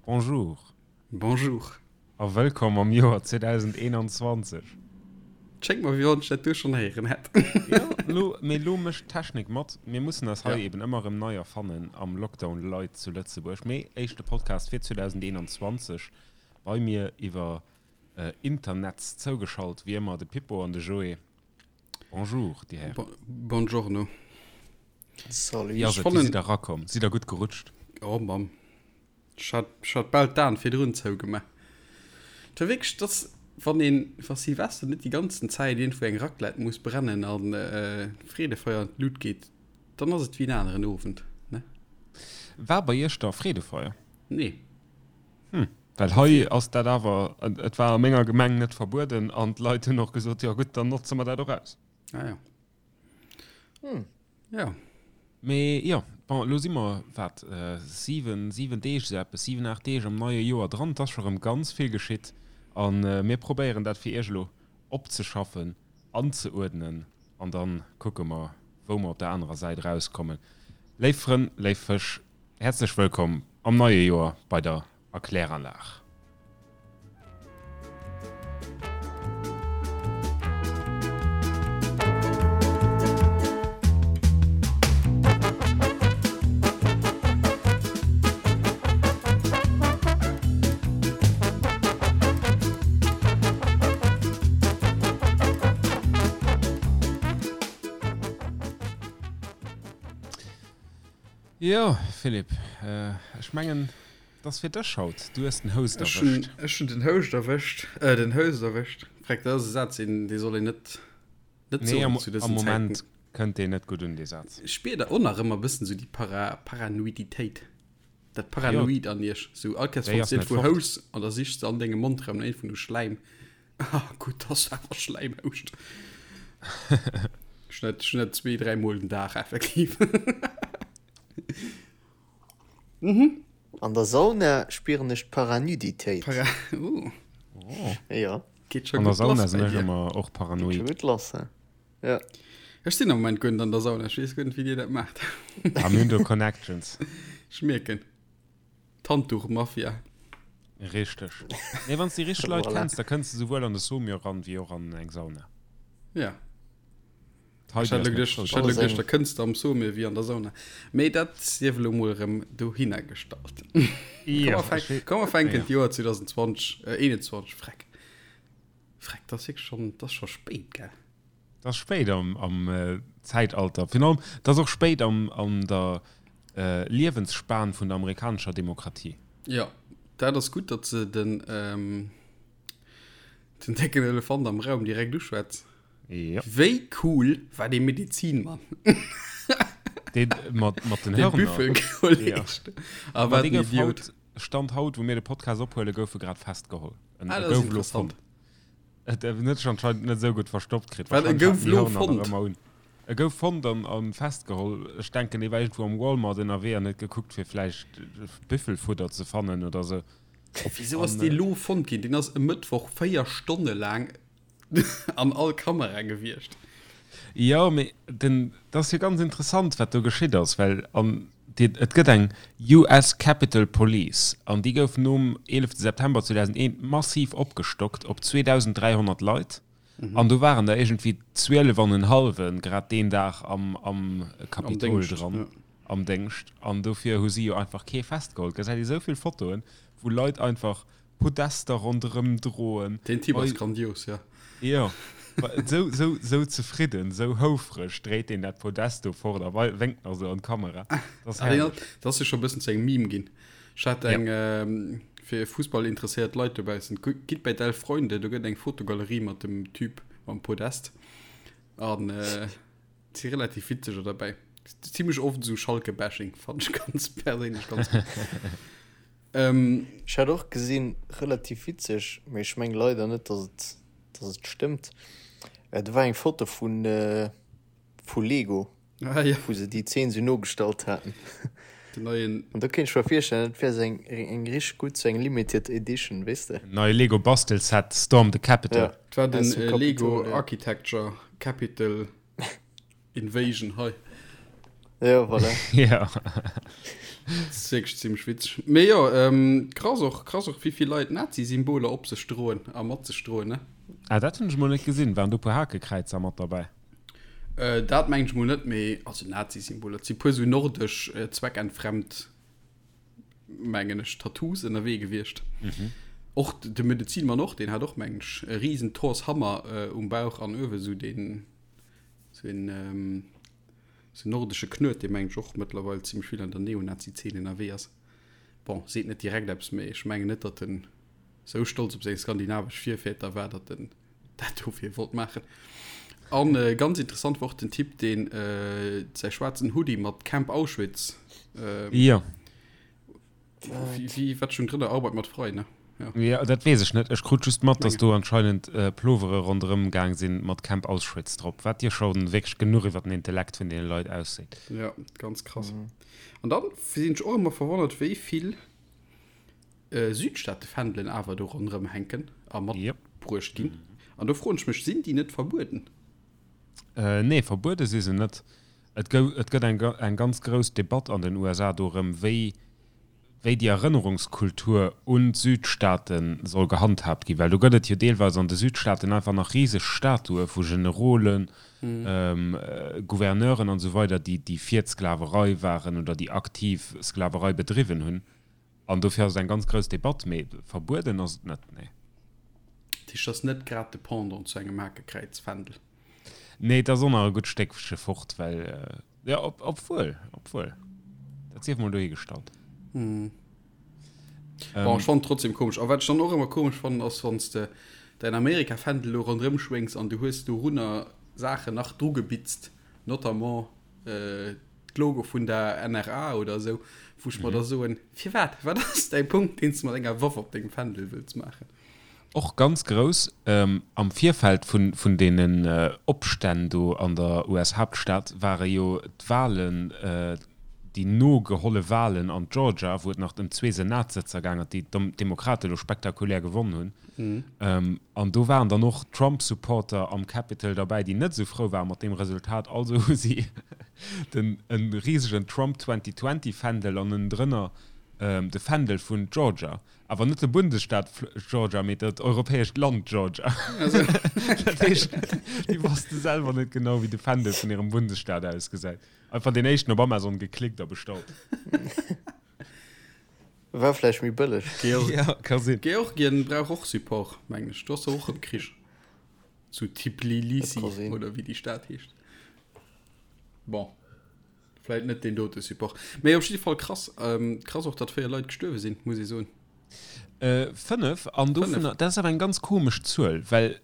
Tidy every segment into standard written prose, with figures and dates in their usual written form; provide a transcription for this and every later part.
Bonjour. Bonjour. A wëllkomm am Joer 2021. Et schéngt mer, wéi wann ech dat do schonn héieren hätt. Jo, lo, mee lo mécht d'Technik mat. Mir mussen eis hei eben ëmmer erëm nei erfannen am Lockdown Light zu Lëtzebuerg. Mee éischte Podcast fir 2021 bei mir iwwer Internetz zougeschalt, wéi ëmmer de Pippo an de Joé. Bonjour, déi Hären. Buongiorno. Salut. Wéi ass et? Wéi sidd der erakomm? Sidd der gutt gerutscht? Oh Mamm. Ech hat, ech hat bal d'Aen virdrun zougemaach. Et war wierklech, dass, wann een, wa Silvester net déi ganzen Zäit iergendwou eng Raclette muss brennen an Freedefeier an d'Lut geet, dann ass et wéi en aneren Owend, ne? War bei iech da Freedefeier? Nee. Hm, well hei ass dat awer, et war a menger Gemeng net verbueden an d'Leit hunn och gesot, jo gutt, dann notze mer dat och aus. Ah ja. Hm. Ja. Mee jo, bon, elo si mer, wat, 7, 7 Deeg, esou eppes, 7, 8 Deeg am neie Joer dran. Et ass scho rëm ganz vill geschitt a mir probéieren dat fir iech elo opzeschaffen, anzeuerdnen an da kucke mer, wou mer op der anerer Säit erauskommen. Léif Frënn, léif Fësch, Häerzlech wëllkomm am neie Joer bei der Erkläranlag. Jo, Philippe, ech mengen, et ass fir dech haut. Du hues den Host erwëscht. Ech hunn den Houscht erwëscht, äh, den Host erwëscht. Freck, dat ass e Saz, deen, dee soll een net, net soen zu dësen Zäiten. Nee, am Moment kënnt deen net gutt un, dee Saz. Ech spier da och nach ëmmer e bëssen esou déi Para, Paranoiditéit, dat Paranoid an iech. Sou all Kéiers, wann s de iergendwou houss an da sichs de an dengem Mondraum no iergendwou no Schläim. Ah, gutt, dass du awer Schläim houscht. Ech hunn dat, ech hunn dat zwee, dräi Mol den Dag effektiv. Mhm. An der Sauna spieren ech d'Paranuditéit. Para oh. Oh. Ja. Geet scho An der gutt Sauna lass sinn bei ech dir. ëmmer och Geet scho paranoid. gutt lass, he? Ja. Ech sinn am Moment guer net an der Sauna. Ech weess guer net, wéi dir dat maacht. Ah, mir hunn do Connections. Ech mierken. D'Handduch-Mafia. Richteg. Nee, wann s de déi richteg Leit Voilà. kenns, da kënns de souwuel an de Saumur ran, wéi och an eng Sauna. Ja. Ech hat elo geduecht, ech hat elo geduecht, da kënns de am Saumur wéi an der Sauna. Mee dat sief elo mol erëm dohinner gestallt. Komm, mer fänken d'Joer 2020, äh, 21, freck. Freck, dat ass wierklech schonn, dat ass scho spéit, gell? Dat ass spéit am, am Zäitalter. Virun allem, dat ass och spéit am, an der Liewensspan vun der amerikanescher Demokratie. Jo, dat ass gutt, datt se den, den décken Elefant am Raum direkt uschwätz. Ja. Wéi cool war dee Medizinmann? Dee mat, mat den Hörner. Büffelkolleg. Ja. Ah, wat en Idiot. Haut, Stand haut, wou mir de Podcast ophuelen, gouf e grad festgeholl. En, ah, dat ass interessant. Et huet sech anscheinend net esou gutt verstoppt kritt. Wat, e gouf lo fonnt? E gouf fonnt an, an festgeholl. Ech denken, dee war iergendwou am Walmart ënnerwee an huet gekuckt, fir vläicht Büffelfudder ze fannen oder sou. Wisou ass dee lo fonnt ginn? Deen ass e Mëttwoch 4 Stonne laang an all Kamera gewiescht. Jo, mee den, dat ass jo ganz interessant, wat do geschitt ass, well an déi, et gëtt eng US Capitol Police an déi gouf nom 11 September 2001 massiv opgestockt op 2.300 Leit an do waren der iergendwéi 12 an en hallwe grad deen Dag am, am Kapitol dran, am Déngscht an dofir hu si jo einfach kee festgeholl. Gesäit ee sou vill Fotoen, wou Leit einfach Podester ronderëm droen. Deen Typ ass grandios, jo. Jo, sou, sou, sou zefridden, sou houfreg dréit deen dat Podest do fort a wénkt nach sou an d'Kamera. Dat ass herrlech. Dat ass jo scho e bëssen zu engem Meme ginn. Ech hat eng, fir fussballinteresséiert Leit dobaussen, gitt bei d'Elf Freunde, do gëtt eng Fotogalerie mat dem Typ mam Podest. An et si relativ witzeger derbäi. Zimmlech oft esou Schalke-Bashing, fannen ech ganz perséinlech ganz gutt. Ähm. Ech hat och gesinn, relativ witzeg, mee ech meng leider net dass et dass et stëmmt, do war eng Foto vun vu Lego, ah, ja. wou se déi Zeen sou nogestallt haten. Den neien. An do kéint ech mer virstellen, dat wär sou eng eng richteg gutt, sou eng limited edition, weess de. Neie Lego Bastelset Storm the Capitol. Ja, Dat war den Lego Architecture Capitol. Invasion hei. Ja, voilà. Ja. Dat ass wierklech zimmlech witzeg. Mee jo, krass och, krass och, wéi vill Leit Nazi-Symboler op sech droen a mat sech droen, ne? Ah, dat hunn ech mol net gesinn. Waren do e puer Hakekräizer mat derbäi? Dat mengen ech mol net, mee also Nazi-Symboler, et si puer sou nordesch zweckentfremd, mengen ech, Tattoos ënnerwee gewiescht. Och de Medezinmann och, deen hat och, mengen ech, e risen Thors Hammer um Bauch an uewe sou deen, sou een, sou nordesche Knuet, dee mengen ech och mëttlerweil zimmlech vill an der Neonazi-Zeen ënnerwee ass. Bon, seet net direkt eppes, mee ech mengen net, datt en sou stolz op seng skandinavesch Virväter war, datt en dat dofir wollt maachen. An äh, ganz interessant war och den Typ, deen äh, säi schwaarzen Hoodie mat Camp Auschwitz. Ähm, ja. Wie, wie, wat schon drënner Arbeit mat frei, ne? Ja. ja, dat weess ech net. Ech krut just mat, dass do anscheinend äh, Plovere ronderëm gaang sinn mat Camp Auschwitz drop, wat dir schon wierklech genuch iwwer den Intellekt vun deene Leit ausseet. Ja, ganz krass. Mhm. An dann sinn ech och ëmmer verwonnert, wéi vill Südstaatefändelen awer do ronderëm hänken a matbruecht ginn. An do froen ech mech, sinn déi net verbueden? Nee, verbuede si se net. Et gëtt eng ganz grouss Debatt an den USA dorëm, wéi wéi déi Erënnerungskultur un d'Südstaate soll gehandhaabt ginn. Well do gëtt et jo deelweis an de Südstaaten einfach nach riseg Statue vu Generolen, Gouverneuren an esou weider, déi fir d'Sklaverei waren oder déi aktiv Sklaverei bedriwwen hunn. An dofir ass et eng ganz grouss Debatt, mee verbueden ass et net, nee. Dat heescht, et ass net grad de Pendant zu engem Hakekräizfändel? Nee, et ass och nach e gutt Stéckche fort, well, jo, obwuel, obwuel, dat sief mol dohigestallt. Bon, ech fannen et trotzdem komesch. A wat ech dann och ëmmer komesch fannen, ass, wann s de däin Amerikafändel do ronderëm schwéngs an du hues dorunner Saachen nach drugebitzt, notamment d'Logo vun der NRA oder esou, wou ech mer da soen, Firwat? Wat ass däi Punkt, deen s de mat enger Waff op dengem Fändel wëlls maachen? Och ganz grouss, am Virfeld vun deenen Opstänn do an der US-Haaptstad ware jo d'Walen, déi nogeholle Walen an Georgia, wou et nach ëm zwee Senatssëtzer gaang ass, déi d'Demokrate elo spektakulär gewonn hunn. An do waren dann och Trump-Supporter am Capitol derbäi, déi net esou frou ware mat deem Resultat. Also hu si den e risegen Trump 2020 Fändel an ënnendrënner de Fändel vun Georgia. Awer net de Bundesstaat Georgia, mee dat europäescht Land Georgia. Dat heescht, déi wosste selwer net genau, wéi de Fändel vun hirem Bundesstaat ausgesäit. Einfach deen éischten op Amazon geklickt a bestallt. War vläicht méi bëlleg. Ja, ka sinn. Georgien brauch och Support, mengen ech. Do ass och erëm Krich. Zu Tbilisi oder wéi déi Stad heescht. Bon, vläit net deen dote Support. Mee op jidde Fall krass. Krass och, datt 4 Leit gestuerwe sinn, muss ee soen. 5, an dovunner, dat ass awer eng ganz komesch Zuel, well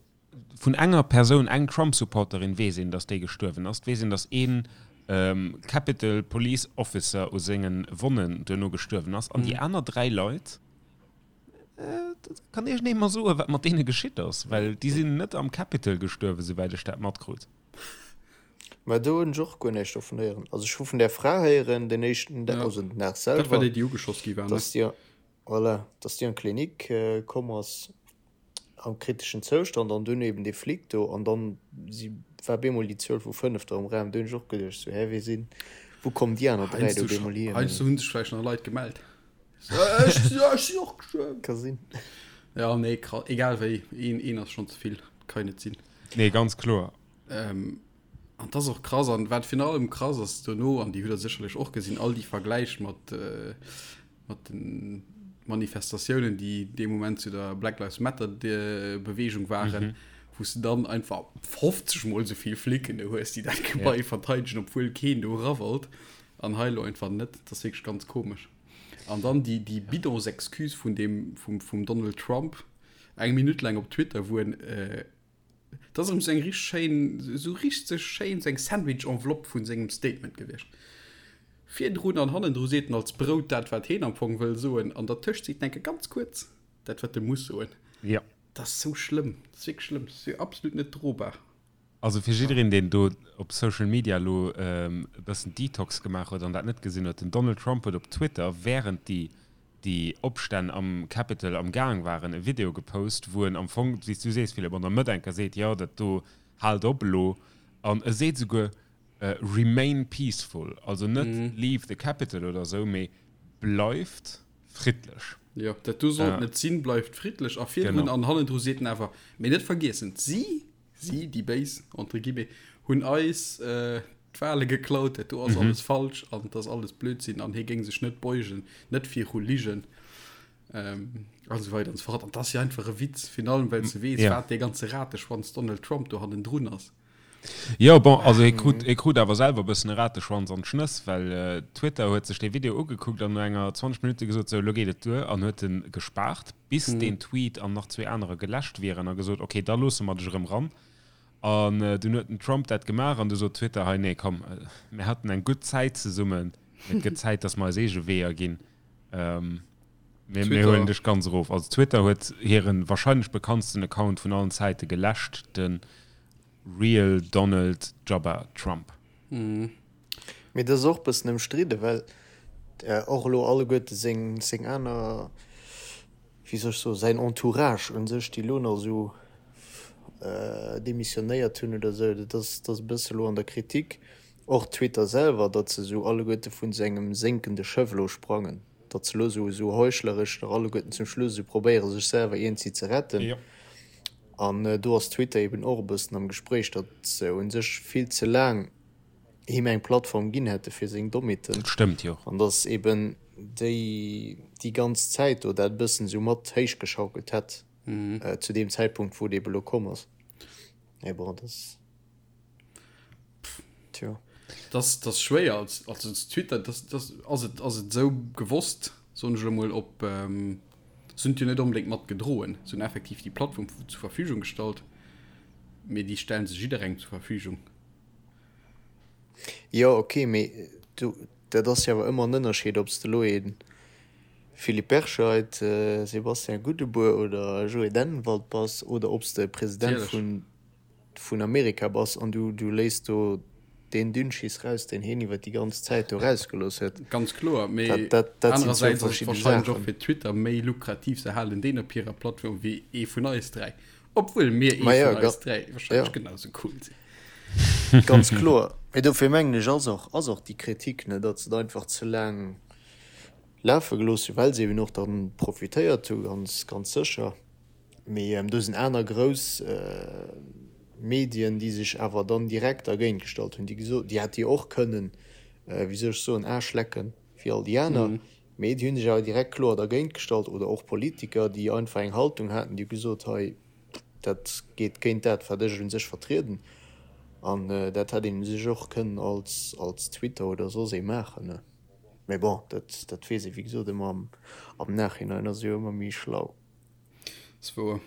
Vun enger Persoun, eng Trump-Supporterin, weess een, datt déi gestuerwen ass. Et weess een, datt ee Capitol Police Officer u senge Wonnen duerno gestuerwen ass. An déi aner 3 Leit, kann iergendee mer soen, wat mat deene geschitt ass? Well déi sinn net am Capitol gestuerwen, souwäit ech dat matkrut. Mä do hunn ech och guer näischt dovun héieren. Also ech hu vun där Fra héieren, den éischten Dag, also den Dag selwer. Dat war déi, déi ugeschoss gi war, ne? Datt déi, voilà, datt déi an d'Klinik komm ass. am kriteschen Zoustand an dunn eben dee Flic do an dann si war bemol déi Zuel vu 5 do am Raum. Do hunn ech och geduecht sou, hä wee sinn, wou kommen déi aner 3 do bemol hier? Heiansdo hunn sech vläicht nach Leit gemellt. Ech sinn och gestuerwen. Ka sinn. Ja nee, egal wéi, een een ass schonn ze vill, kann net sinn. Nee, ganz kloer. An dat ass och krass. An wat virun allem krass ass dono, an déi hutt Der sécherlech och gesinn, all déi Vergläich mat, mat de Manifestatiounen, déi dee Moment zu der Black Lives Matter Beweegung waren, wou s de dann einfach 50 mol esou vill Flicken do hues, déi dat Gebai verteidegen, obwuel keen do era wollt. An hei elo einfach net. Dat ass wierklech ganz komesch. An dann déi, déi Bidonsexcuse vun deem, vum, vum Donald Trump, eng Minutt laang op Twitter, wou en, Dat ass erëm sou eng richteg schéin, sou richteg schéin, sou eng Sandwich-Enveloppe vun sengem Statement gewiescht. Virdrun an hannendru seet en als Brout dat, wat heen am Fong wëll soen, an dertëscht seet en enke ganz kuerz dat, wat e muss soen. Jo. Dat ass sou schlëmm, dat ass wierklech schlëmm, dat ass jo absolut net drobar. Also fir jiddereen, deen do op Social Media elo e bëssen Detox gemaach huet an dat net gesinn huet, den Donald Trump huet op Twitter, wärend déi déi Opstänn am Capitol am Gaang waren, e Video gepost, wou en am Fong, wéi s du sees, Philippe, an der Mëtt enker seet, jo, dat do, haalt op elo. An e seet esouguer, remain peaceful, also net leave the Capitol oder esou, mee. Bleift friddlech. Jo, dat do sollt net sinn, bleift friddlech. A virdrun an hannendru seet en awer, mee net vergiessen, si, si, déi Béis, entre guillemets, hunn eis d'Wale geklaut, dat do ass alles falsch an et ass alles Blödsinn an hie géing sech net beugen, net viru Ligen a sou weider an sou fort. An dat ass jo einfach e Witz, virun allem well s de weess, wat dee ganze Rateschwanz Donald Trump do hannendrun ass. Jo, bon, also hie krut, hie krut awer selwer e bëssen e Rateschwanz an d'Schnëss, well Twitter huet sech dee Video ugekuckt an no enger 20 Minutte gesot, sou, elo geet et duer, an huet en gespaart, bis deen Tweet an nach zwee anerer geläscht wieren, a gesot, ok, da loosse mer dech erëm ran. An dunn huet den Trump dat gemaach an du sot Twitter, hei, nee, komm, mir haten eng gutt Zäit zesummen, mee et gëtt Zäit, datt mer eis eege Weeër ginn. Mir, mir huelen dech ganz erof. Also Twitter huet hiren wahrscheinlech bekanntsten Account vun allen Zäite geläscht, de Real Donald Jabba Trump. Mee dat ass och bëssen ëmstridde, well och elo alleguerte seng, seng aner, wéi soll ech soen, säin Entourage un sech, déi elo nach esou demissionéiert hunn oder esou, dat ass, dat ass e bësse elo an der Kritik. Och Twitter selwer, datt se esou alleguerte vun esou engem sénkende Schëff elo sprangen, datt se elo esou esou heuchleresch nach alleguerten zum Schluss esou probéiere sech selwer iergendwéi ze retten. An do ass Twitter eben och e bëssen am Gespréich, datt se u sech vill ze laang him eng Plattform ginn hätte fir seng Dommheeten. Dat stëmmt, jo. An datt eben déi déi ganz Zäit do dat e bëssen esou mat héichgeschaukelt hätt zu deem Zäitpunkt, wou et eben elo komm ass. Mee bon, dat ass. Tjo. Das, das schwéier als, als Twitter das, das, ass et, ass et sou gewosst soen ech elo mol op ähm, se hunn et jo net onbedéngt mat gedroen, se hunn effektiv déi Plattform zur Verfügung gestallt, mee déi stellen se jidderengem zur Verfügung. Jo ok, mee du dat ass jo awer ëmmer en Ënnerscheed ob s de elo ee Philippe Berscheid, Sébastien Goudebour oder Joé Dennenwald bass oder ob s de President vun vun Amerika bass an du du léiss do deen Dünnschiss raus, deen hien iwwer déi ganz Zäit do rausgelooss huet. Ganz kloer, mee Dat, dat, dat sinn zwou anerersäits ass et verschidde wahrscheinlech och Saachen. fir Twitter méi lukrativ, se halen deen op hirer Plattform wéi ee vun eis dräi, obwuel mir ee Ma jo, vun ga eis dräi wahrscheinlech ja. genau sou cool sinn. Ganz kloer. Mee dofir mengen ech ass och, ass och déi Kritik, ne, datt se et einfach ze laang lafe gelooss hunn, well se eben och dann profitéiert hu ganz, ganz sécher. Mee do sinn aner grouss Medien, déi sech awer dann direkt dergéint gestallt hunn, déi gesot, déi hätte jo och kënnen, wéi soll ech soen, Aarschlecken wéi all déi aner, mee déi hu sech awer direkt kloer dergéint gestallt. Oder och Politiker, déi einfach eng Haltung haten, déi hu gesot, hei, dat geet géint dat, wat ech u sech vertrieden. An dat hätt een u sech och kënnen als, als Twitter oder soss ee maachen. Mee bon, dat, dat weess ee wéi gesot ëmmer am, am Nachhinein ass ee jo ëmmer méi schlau. Ass wouer.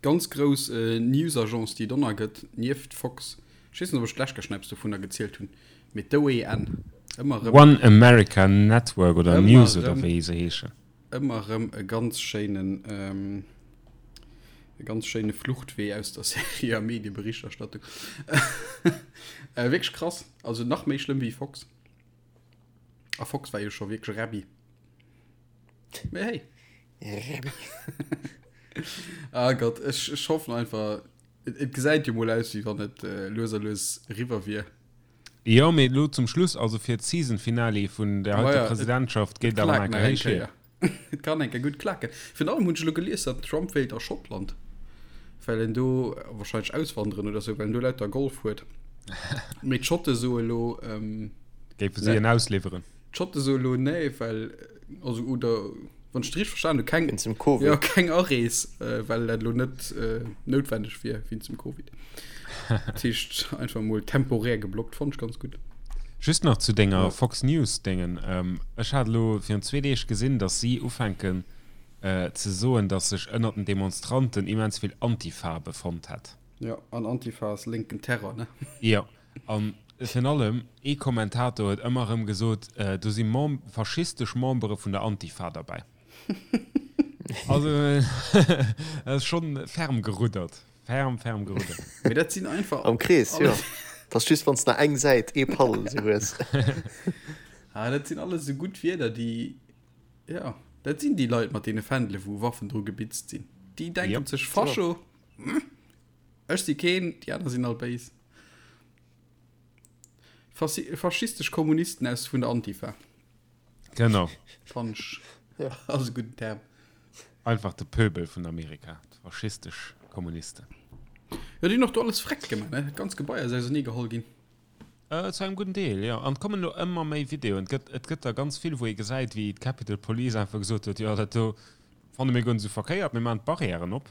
Ganz grouss News-Agence, déi et onnei gëtt, nieft Fox. Ech weess net, ob ech d'lescht Kéier schon eppes dovunner gezielt hunn, mee d'OAN, ëmmer erëm. One America Network oder News oder wéi se heeschen. Ëmmer erëm e ganz schéinen, e ganz schéine Fluchtwee aus der seriöer Medieberichterstattung. Wierklech krass, also nach méi schlëmm wéi Fox. A Fox war jo scho wierklech Räbbi. Mee hey. Ah Gott, ech, ech hoffen einfach, et, et gesäit jo mol aus, wéi wann et äh, lues a lues eriwwer wier. Jo, mee elo zum Schluss, also fir d'Season-Finale vun der heiter ja, Presidentschaft, geet awer nach eng Kéier héich hier. Et kann eng Kéier gutt klaken. Virun allem hunn ech elo gelies, datt den Trump wéilt a Schottland, well en do wahrscheinlech auswanderen oder sou, well en do lauter Golf huet. Mee d'Schotte soe elo, ähm, Géife si en ausliwweren? D'Schotte soe elo nee, well also oder wann ech et richteg verstanen hu keng Wéinst dem Covid. Ja, keng Arees, äh, well dat elo net äh, noutwendeg wier wéinst dem Covid. Dat heescht einfach mol temporär geblockt, fonnt ech ganz gutt. Just nach zu denger Fox News Déngen. Ähm, ech hat elo virun zwee Deeg gesinn, datt si ufänken äh, ze soen, datt sech ënnert den Demonstranten immens vill Antifa befonnt hätt. Ja, an Antifa ass lénken Terror, ne? Jo. An virun allem ee Kommentator huet ëmmer erëm gesot, do si Mem faschistesch Membere vun der Antifa derbäi. Also dat ass schonn ferm geruddert. Ferm, ferm geruddert. Mee dat sinn einfach. Am Krees, jo. Dat ass just, wann s de nach eng Säit, ee Paddel esou hues. Ah, dat sinn alles esou gutt Wierder, déi, jo, dat sinn déi Leit mat deene Fändele wou Waffen dru gebitzt sinn. Déi denken sech, Fascho, ech si keen, déi aner sinn all béis. Faschistesch Kommunisten aus vun der Antifa. Genau. Fannen ech ass e gudden Term. Einfach de Pöbel vun Amerika, d'faschistesch Kommunisten. Jo, déi hunn och do alles freck gemaach, ne? Dat ganz Gebai ass ausernee geholl ginn. Zu engem gudden Deel, jo. An et kommen elo ëmmer méi Videoen. Et gëtt, et gëtt der ganz vill, wou ee gesäit, wéi d'Capitol Police einfach gesot huet, jo, dat do fanne mir guer net esou verkéiert, mir maachen d'Barrièren op.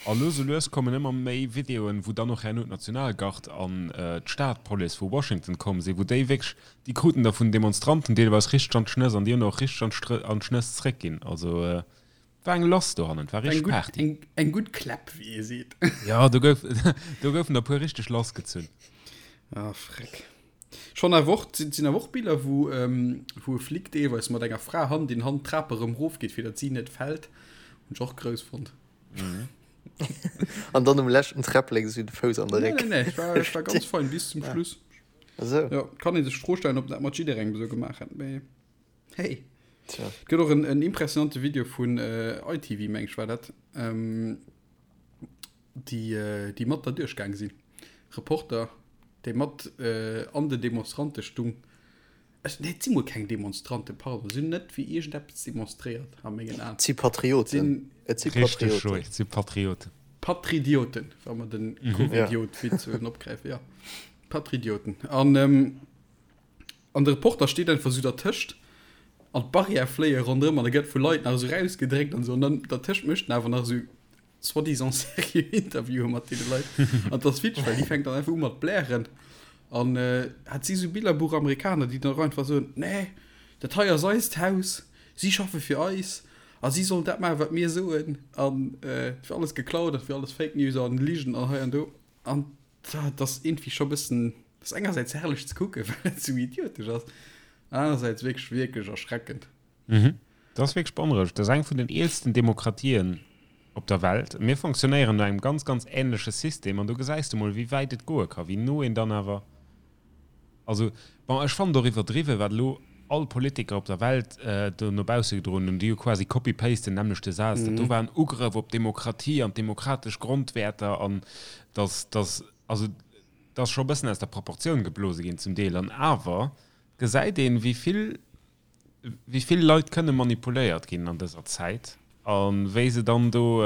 A lues a lues kommen ëmmer méi Videoen, wou dann och herno d'Nationalgard an d'Stadpolice vu Washington komm sinn, wou déi wierklech, déi kruten da vun den Demonstranten deelweis richteg an d'Schnëss an déi hunn och richteg an d'Schnëss zréckginn. Also war eng lass dohannen, war richteg Party. Eng, eng gutt Kläpp, wéi ee seet. Jo, do gouf, do goufen der puer richteg lassgezunn. Ah, freck. Schonn awer och, et sinn awer och Biller, wou, wou e Flic deelweis mat enger Fra Hand in Hand d'Trap erëm rofgeet, fir datt si net fält. Hunn ech och grouss fonnt. Mhm. An dann um leschten Träpplek esou de Fouss an de Réck. Nee, nee, nee, ech war, ech war ganz fein bis zum Schluss. Esou. Jo, kann ee sech d'Fro stellen, ob dat mat jidderengem esou gemaach hätt, mee. Hey. Tja. Et gëtt och en, en impressionante Video vun äh, ITV, meng ech war dat, ähm, déi, äh, déi mat da duerchgaang sinn. Reporter, déi mat äh, an den Demonstrante stung. Ech, nee, et si mol keng Demonstranten, pardon, si hunn net fir iergendeppes demonstréiert, a mengen Aen. Et si Patrioten. Et si Patrioten. Richtig, et si Patrioten. Patridioten, wa mer den mhm. Covidiot-Witz ja. opgräifen, ja. Patridioten. An ähm, An de Reporter steet einfach esou dertëscht an d'Barrière fléie ronderëm an e gëtt vu Leit nach esou rausgedréckt an esou. An dann dertëscht mécht en awer nach esou soi-disant seriö Interviewe mat deene Leit. An 't ass witzeg, well déi fänkt dann einfach u mat blären. An hat si esou Billerbuch-Amerikaner, déi dann och einfach soen, Nee, dat hei ass eist Haus, si schaffe fir eis a si sollen dat maachen, wat mir soen. An et wier alles geklaut an et wier alles Fake News an Ligen an hei an do. An Dat ass iergendwéi scho bëssen, dat ass engersäits herrlech ze kucken, well et sou idiotesch ass, anerersäits wierklech, wierklech erschreckend. Mhm. Dat ass wierklech beonrouegend. Dat ass eng vun den eelsten Demokratien op der Welt. Mir fonctionnéieren no engem ganz, ganz änleche System an do gesäis de mol, wéi wäit et goe ka, wéi no een dann awer Also, bon, ech fannen et och iwwerdriwwen, wat elo all Politiker op der Welt do no bausse gedroen hunn. Déi hu quasi copy-paste den nämmlechte Saz. Dat do war en Ugrëff op d'Demokratie an d'demokratesch Grondwäerter an dass, dass, also, dat ass scho e bëssen aus der Proportioun geblose ginn zum Deel. An awer gesäit een, wéi vill wéi vill Leit kënne manipuléiert ginn an dëser Zäit a wéi se dann do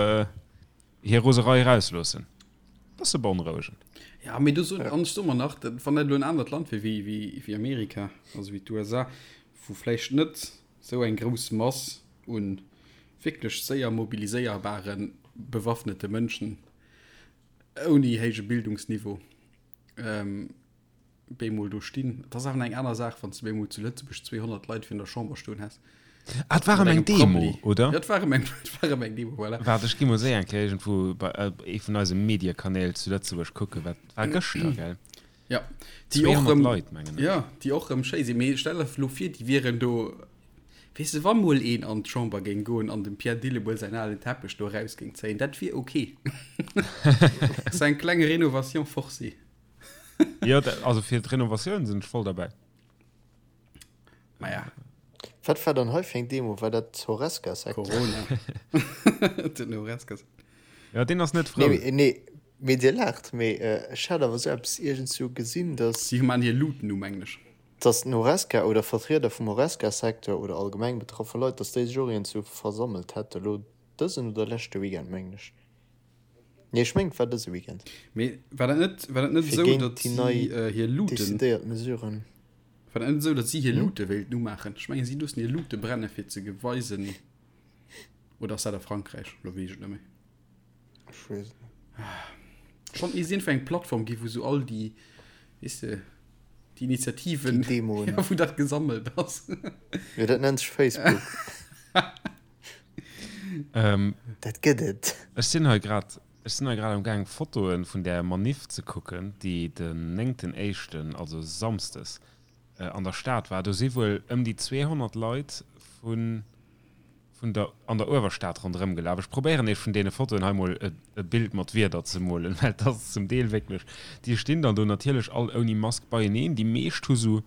hir Roserei erausloossen. Bësse beonrouegend. Ja, mee do soen, an ech soe mer nach, wann dat elo en anert Land wier wéi, wéi, wéi Amerika, also wéi d'USA, wou vläicht net esou eng grouss Mass u wierklech séier mobiliséierbare bewaffnete Mënschen ouni héije Bildungsniveau, bemol do stinn. Et ass awer eng aner Saach, wann s de bemol zu Lëtzebuerg 200 Leit virun der Chamber stoen häss. Ah, et war ëm eng Demo, oder? Ja, et war ëm eng, et war ëm eng Demo, voilà. Waart, ech gi mol séier eng Kéier iergendwou bei ee vun eise Mediekanäl zu Lëtzebuerg kucken, wat war gëschter, gell? Ja, déi och 200 rëm, Leit, mengen ech. Ja, déi och rëm schéi sinn. Mee stell der elo vir, déi wieren do, weess de, wa mol een an d'Chamber géing goen an dem Pierre Dillemuel säin alen Teppech do eraus géing zéien, dat wier ok. Dat ass eng kleng Rénovation forcée. Jo, also fir d'Renovatioun sinn ech voll derbäi. Maja. Wat war dann hei fir eng Demo? War dat d'Horesca-Secteur? Corona. Den Horesca-Secteur. Jo, deen ass net frou. Nee, nee, mee Dir laacht, mee ech hat awer esou eppes iergendswou gesinn, dass. Si maan hir Luuten um, mengen ech. Dass den Horesca oder Vertrieder vum Horesca-Secteur oder allgemeng betraffe Leit, dass déi sech och iergendswou versammelt hätte lo dësen oder leschte Weekend, mengen ech. Nee, ech mengen et war dëse Weekend. Mee war dat net, war dat net Fir esou, géint datt déi si nei hir Luuten, decidéiert Mesuren. war dat net esou, datt si hir Luute wéilten umaachen? Ech mengen, si loossen hir Luute brenne fir ze geweisen, oder ass dat a Frankräich? Elo weess ech et net méi. Ech weess et net. Schonn ee sinn fir eng Plattform gi wou sou all déi, weess de, déi Initiativen, Déi Demoen. ja, wou dat gesammelt ass. Jo, dat nennt sech Facebook. Ähm, Dat gëtt et. Ech sinn hei grad, ech sinn hei grad am gaang Fotoe vun där Maniff ze kucken, déi den néngten éischten, also samsdes, an der Stad war. Do si wuel ëm déi 200 Leit vun, vun der, an der Uewerstad ronderëm gelaf. Ech probéieren Iech vun deene Fotoen hei mol e, e Bild mat Wierder ze molen, well et ass zum Deel wierklech, déi stinn dann do natierlech all ouni Mask beieneen. Déi meescht hu sou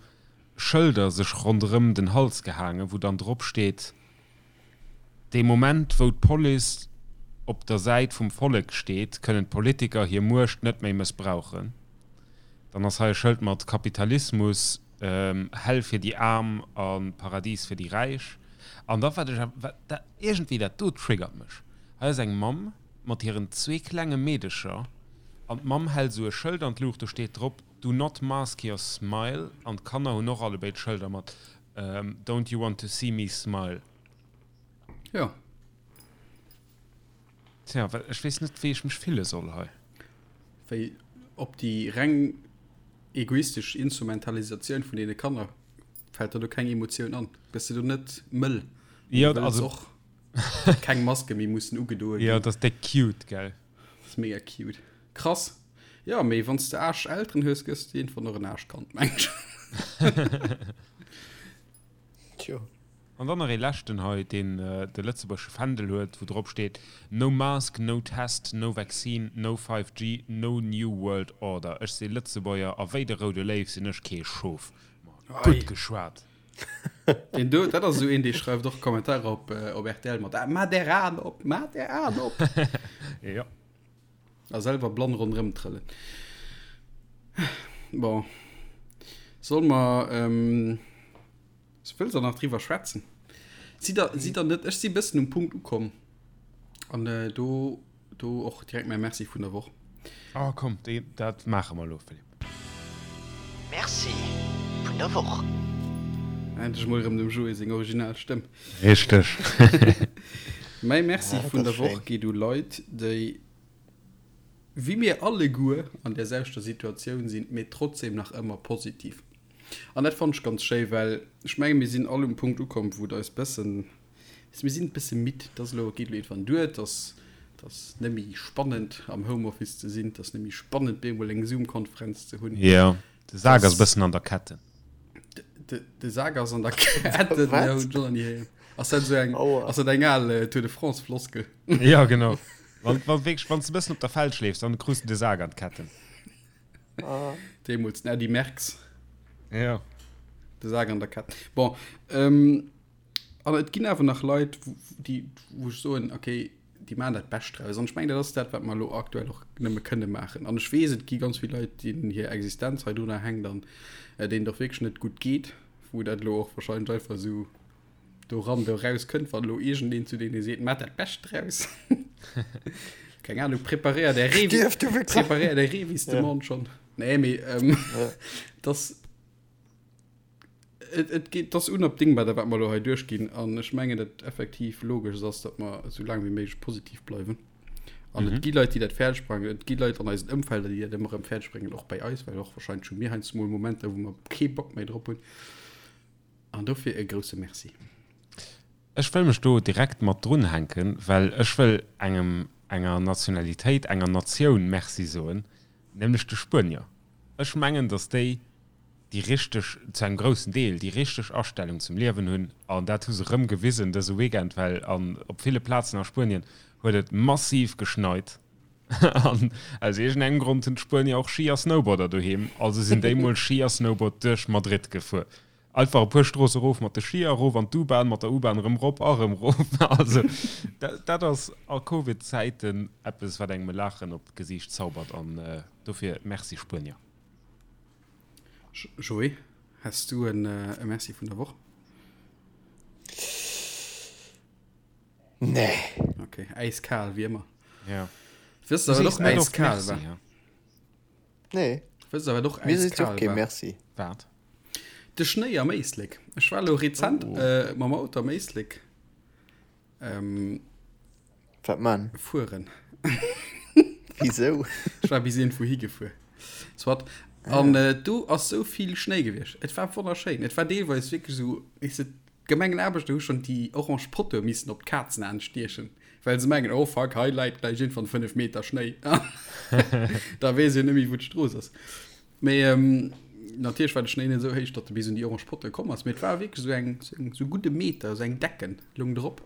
Schëlder sech ronderëm den Hals gehaangen, wou dann drop steet, Dee Moment, wou d'Police op der Säit vum Vollek steet, kënnen d'Politiker hir Muecht net méi mëssbrauchen. Dann ass hei e Schëld mat Kapitalismus. Hell fir déi Aarm a Paradis fir déi Räich. An da wat ech awer, dat iergendwéi dat do triggert mech. Hei ass eng Mamm mat hiren zwee klenge Meedecher an d'Mamm hält esou e Schëld an d'Luucht, do steet drop Do not mask your smile an d'Kanner hunn och allebéid Schëlder mat Don't you want to see me smile. Jo. Tja, well ech weess net, wéi ech mech fille soll hei. Wéi op déi reng egoistesch Instrumentalisatioun vun deene Kanner fält der do keng Emotioun an? Gëss de do net mëll? Jo, also och datt keng Maske méi mussen ugedoe ginn. Jo, dat ass déck cute, gell? Dat ass mega cute. Krass. Jo, mee wann s de Aarsch-Elteren hues, gëss de iergendwann och en Aarschkand, meng ech. Tjo. An dann nach ee leschten hei, deen de lëtzebuergesche Fändel huet, wou drop steet, No mask, no test, no vaccine, no 5G, no new world order. Ech si Lëtzebuerger a wéi de roude Léiw sinn ech kee Schof. Ma gutt geschwat! Deen do, dat ass esou een, dee schreift och Kommentarer op, op rtl mat, Maat är Aen op, maat är Aen op! Jo. A selwer blann ronderëm trëllen. Bon. Solle mer, ähm, wëlls der nach driwwer schwätzen? Sidd der, sidd der net, ech si bëssen um Punkt ukomm an äh, do, do och direkt mäi Merci vun der Woch. Oh komm, déi, dat maache mer elo, Philippe. Merci vun der Woch. Endlech mol erëm dem Joé seng original Stëmm. Richteg. Mäi Merci Ah, dat vun ass der Woch schéin. geet u Leit, déi wéi mir alleguer an där selwechter Situatioun sinn, mee trotzdem nach ëmmer positiv. An dat fannen ech ganz schéi, well ech menge mir sinn all um Punkt ukomm, wou et eis bëssen, mir sinn e bësse midd, et ass elo, et geet elo iergendwann duer, et ass, et ass net méi spannend am Homeoffice ze sinn, et ass net méi spannend bemol eng Zoom-Konferenz ze hunn. Jo, de Sak ass e bëssen an der Ketten. De, de Sak ass an der Ketten, Wat? jo, hunn ech och nach ni héieren. Ass dat esou eng, Aua. ass dat eng al Tour de France-Floskel? Jo, genau. Wann, wann wierklech, wann s de e bëssen op der Felg leefs, dann krus de de Sak an d'Ketten. Ah. Deemools den Eddy Merckx. Ja. De Sak an der Kett. Bon, ähm, an et ginn awer nach Leit, déi, wou ech soen, okay, déi maachen dat Bescht draus. An ech mengen, dat ass dat, wat mer elo aktuell och nëmme kënne maachen. An ech weess, et gi ganz vill Leit, deenen hir Existenz hei drunner hänkt an äh, deenen et och wierklech net gutt geet, wou dat elo och wahrscheinlech einfach esou do ran, do raus kënnt, wann elo iergendeen zu deene seet, Maat dat Bescht draus. Keng Ahnung, preparéier där Revis, Stierf, du Wichser! preparéier där Revis-Demande schonn. Nee, mee ähm, das, et, et geet, das unabdingbar, dat wat mer elo hei duerchginn. An ech mengen, dat effektiv logesch ass, datt mer esou laang wéi méiglech positiv bleiwen. An et gi Leit, déi dat fäerdeg bréngen. Et gi Leit an eisen Ëmfelder, déi dat ëmmer erëm fäerdeg bréngen, och bei eis, well och wahrscheinlech hu mir heiansdo mol Momenter, wou mer kee Bock méi drop hunn. An dofir e grousse Merci. Ech wëll mech do direkt mat drunhänken, well ech wëll engem, enger Nationalitéit, enger Natioun Merci soen, nämlech de Spuenier. Ech mengen, datt déi déi richteg, zu engem groussen Deel, déi richteg Astellung zum Liewen hunn. An dat hu se erëm gewisen dëse Weekend, well an op ville Plazen a Spuenien huet et massiv geschneit. An aus iergendengem Grond hunn d'Spuenier och Ski a Snowboarder doheem, also sinn déi mol Ski a Snowboard duerch Madrid gefuer. Einfach e puer Stroosse rof mat de Skier, erof an d'U-Bahn, mat der U-Bahn erëm rop a rëm rof. Also dat ass a Covid-Zäiten eppes, wat engem e Laachen op d'Gesiicht zaubert an dofir Merci Spuenier. Joé, häss du e Merci vun der Woch? Nee. Okay, äiskal wéi ëmmer. Ja. Wësst der, wat och äiskal war? Nee. Wësst der, wat och Mir seet äiskal och kee war? Merci. Wat? De Schnéi am Éislek. Ech war elo rezent Oh. äh, mam Auto am Éislek ähm, Wat man? fueren. Wisou? Ech war bis iergendwou higefuer. Soit. An äh, do ass sou vill Schnéi gewiescht. Et war wonnerschéin. Et war deelweis wierklech esou, weess de, D'Gemengenaarbechter hu schonn déi orange Pottoe missen op d'Kazenaen stiechen, well se mengen, oh fuck, hei läit gläich iergendwann 5 Meter Schnéi. Da weess een net méi, wou d'Strooss ass. Mee natierlech war de Schnéi net esou héich, datt e bis un déi orange Pottoe komm ass, mee et war wierklech esou eng, esou e gudde Meter, esou eng Decken loung drop.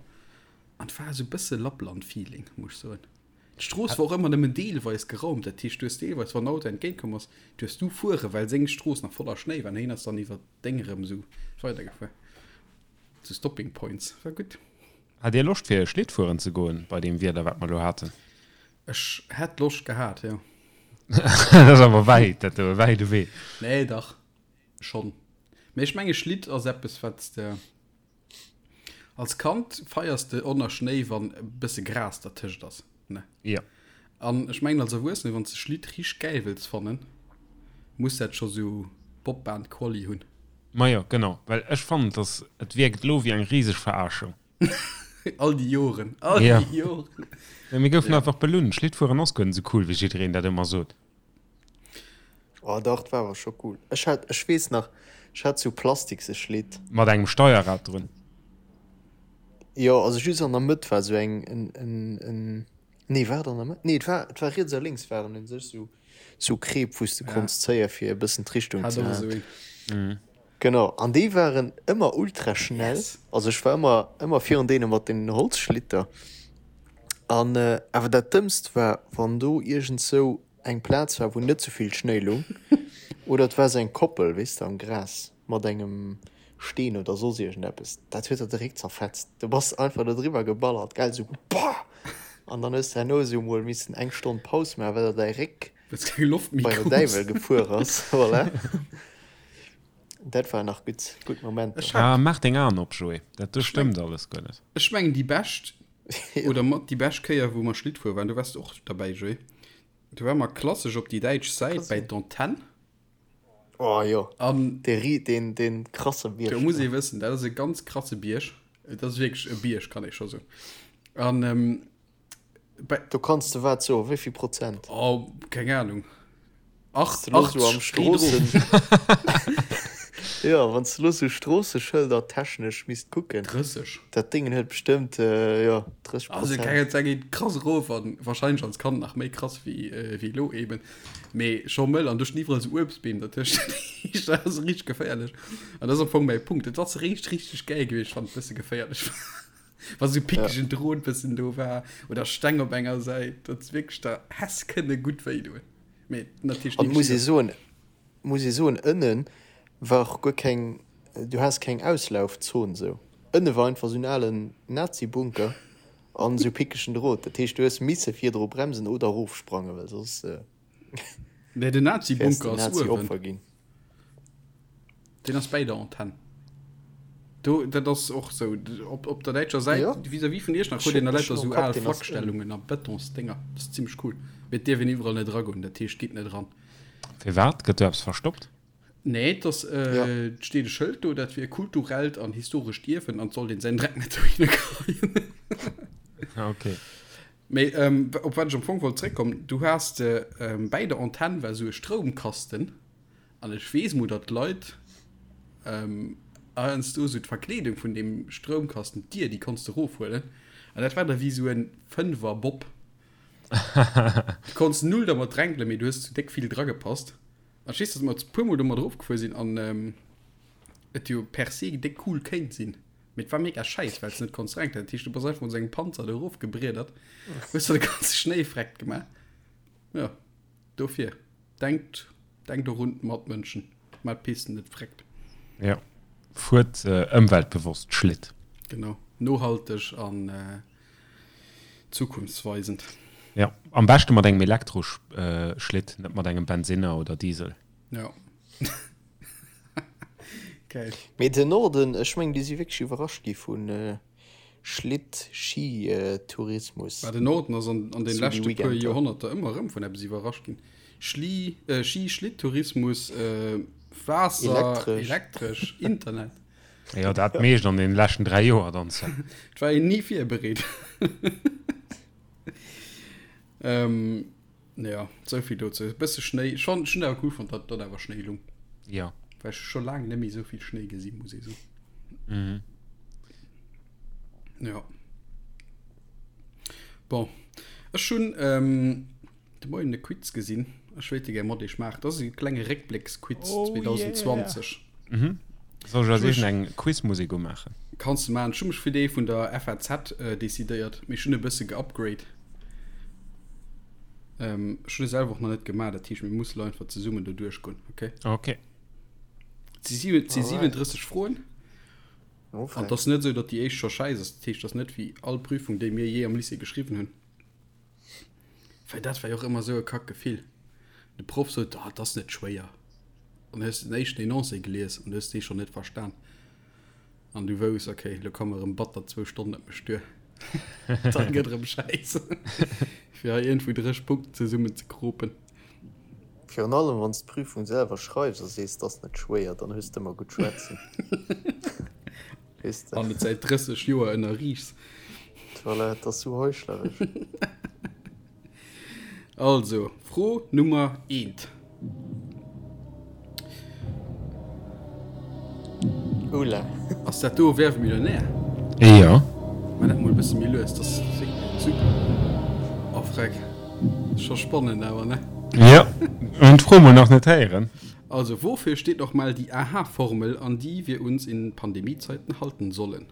An et war esou e bësse Lappland-Feeling, muss ech soen. D'Strooss war och ëmmer nëmmen deelweis geraumt, dat heescht, du hues deelweis, wann en Auto entgéintkomm ass, du hues du fuere, well seng Strooss nach voller Schnéi war an hien ass dann iwwer Deng erëm esou weidergefuer. Zu Stopping Points. War gutt. Hat dir Loscht fir Schlitt fueren ze goen bei deem Wieder wat mer lo haten? Ech hätt Loscht gehat, jo. Dat ass awer wäit, dat do, e wäide Wee. Nee, dach schonn. Mee ech menge Schlitt ass eppes, wat s de als Kand feiers de och nach Schnéi, wann e bësse Gras dertëscht ass, ne? Jo. An ech mengen als Erwuessene, wann s de Schlitt richteg gäil wëlls fannen, muss dat scho sou Bobbahn-Quali hunn. Majo, genau, well ech fannen, dass et wierkt elo wéi eng riseg Verarschung. All déi Joren, all Ja. déi Joren. Mä mir goufen einfach belunn. Schlittfueren ass guer net esou cool, wéi jiddereen dat ëmmer sot. Oh dach, dat war awer scho cool. Ech hat, ech weess nach, ech hat sou plastikse Schlitt. Mat engem Steierrad drun. Jo, also just an der Mëtt war sou eng, en, en, en, nee war et an der Mëtt? Nee, et war, et war riets a lénks waren un sech sou, sou Kreep, wou s de konns zéie fir e bëssen d'Richtung Hat ze och halen. esou een. Genau, an déi waren ëmmer ultra schnell. Yes. Also ech war ëmmer, ëmmer virun deene mat den Holzschlitter. An awer dat Dëmmst war, wann do iergendsou eng Plaz war, wou net sou vill Schnéi lung, oder et war sou eng Koppel, weess de, am Gras mat engem Steen oder soss iergendeppes, dat huet der de Réck zerfetzt. Du bass einfach do driwwer geballert, gell, sou Bah! An dann hues de herno sou mol missen eng Stonn Paus maachen, well der däi Réck Well s keng Loft méi bei der krus. Däiwel gefuer ass. Voilà. Dat war nach gutt, gutt Momenter. Ech hat. Ah, maach deng Aen op, Joé, dat do Ech meng, stëmmt alles guer net. ech mengen déi bescht oder mat déi bescht Kéier wou mer Schlitt fuere waren, do waars de och derbäi, Joé, do ware mer klassesch op déi däitsch Säit Kann bäi sinn. d'Antenn. Oh jo, An dee ri, deen, deen krasse do Bierg muss do. ee wëssen, dat ass e ganz krasse Bierg. Et ass wierklech e Bierg, kann ee scho soen. An Bei Do kanns de wat soen, wéi vill Prozent? Oh, keng Ahnung. Wanns de lo sou am Stroossen. Jo, wanns de lo sou Stroosseschëlder technesch misst kucken. 30. Dat Déngen huet bestëmmt, jo, 30 Also, Prozent. keng Ahnung, geet krass erof an wahrscheinlech als Kand nach méi krass wéi, wéi elo eben. Mee scho mëll an do stinn iwwerall sou Uebstbeem dertëscht. Dat ass richteg geféierlech. An dat ass am Fong mäi Punkt. Et ass richteg, richteg gäil gewiescht, wann et bësse geféierlech war. Wa sou pickegen Drot bëssen do war oder Steng op enger Säit, dat wierklech der häss kënne gutt wéi doen. Mee natierlech An ni muss ee geschitt ass. soen, muss ee soen, ënne war och guer keng, du has keng Auslaufzon sou. Ënne war einfach sou en alen Nazi-Bunker an sou pickegen Drot. Dat heescht, du hues misse virdru bremsen oder erofsprangen, well soss Nee, den wäers de Nazi-Bunker ass uewen. Nazi-Opfer ginn. Deen ass bäi der Antenn. Do, dat ass och sou, op, op der däitscher Säit, Jo. vis-à-vis vun Iechternach, huet een da Ech lauter hunn sou am Kapp, al deen ass ënnen. Flakstellungen a Betonsdénger. Dat ass zimmlech cool. Mee et dierf een iwwerall net eragoen, dat heescht, gitt net eran. Firwat? Gëtt do eppes verstoppt? Nee, et ass, Ja. et steet e Schëld do, dat wier kulturellt an historescht Ierwen an et sollt een säin Dreck net dohinner geheien. Ah, okay. Mee op wat ech am Fong wollt zréckkommen, du has de, bäi der Antenn war sou e Stroumkasten. An ech weess mol, datt d'Leit heiansdo esou d'Verkleedung vun deem Stroumkasten, d'Dier, déi konns de erofhuelen. An dat war da wéi esou e Fënnwer-Bob. Du konns null dermat dränkelen, mee du hues zu déck vill dragepasst. An ech weess, datt mer e puermol domat erofgefuer sinn an et jo per se déck cool kéint sinn. Mee et war mega schäiss, well s de net konns dränkelen. Dat heescht, du bass einfach mat esou engem Panzer do erofgebriedert, hues der de ganze Schnéi vreckt gemaach. Jo, dofir. Denkt, denkt och un d'Matmënschen, maat d'Pisten net vreckt. Jo, fuert ëmweltbewosst Schlitt. Genau, nohalteg an zukunftsweisend. Jo, am beschte mat engem Elektroschlitt, net mat engem Bensinner oder Diesel. Jo. Geil. Mee den Norden, ech mengen déi si wierklech iwwerrascht gi vun Schlitt-Ski-Tourismus. Bah, den Norden ass an, an den Sou déi leschte puer Weekender. Joerhonnerter ëmmer erëm vun eppes iwwerrascht ginn. Schli, äh, Ski-Schlitttourismus, äh, Waasser, Elektresch. elektresch, Internet. Jo, dat meescht an den leschten 3 Joer dann. Et war een ni virbereet. Ähm, ja, sou vill dozou. E bësse Schnéi. Ech fand, ech hunn awer cool fonnt, datt, datt awer Schnéi lung. Ja. Well ech scho laang net méi sou vill Schnéi gesi muss ee soen. Mhm. Ja. Bon. Ech hunn ähm, de Moien e Quiz gesinn. Ech wéilt e gär mat iech maachen. Dat ass e klenge Réckblécksquiz Oh 2020. yeah. Mhm. Soll ech als éischt eng Quizmusek umaachen? Kanns de maachen. Ech hu mech fir dee vun der FAZ decidéiert, mee ech hunn e bësse geupgrade. Ech hunn e selwer och nach net gemaach, dat heescht mir musse lo einfach zesummen do duerchgoen, okay? Okay. Et si 37 Froen. An et ass net esou, datt déi éischt scho schäiss ass. Dat heescht, et ass net wéi all Prüfung, déi mir jee am Lycée geschriwwen hunn. Well dat war jo och ëmmer esou e Kackgefill. De Proff sot, Ah, et ass net schwéier. An hues den éischten Enoncé gelies an du hues dee schonn net verstan. An du wouss, okay, lo komme rëm batter zwou Stonnen op mech duer. Dann gëtt erëm Schäiss. Fir hei iergendwou dréch Punkten zesummen ze kropen. Virun allem wann s d'Prüfung selwer schreifs a sees, 't ass net schwéier, dann hues d'ëmmer gutt schwätzen. Weess de. An et säit 30 Joer ënnerriichs. Voilà, et ass sou heuchleresch. Also, Fro Nummer eent. Oula. Ass dat do Wer wird Millionär? Jo. Maa dat mol e bësse méi lues, dat ass super. Oh freck, scho spannend awer, ne? Jo, hunn d'Fro mol nach net héieren. Also, wofür steht nochmal die AHA-Formel, an die wir uns in Pandemiezeiten halten sollen?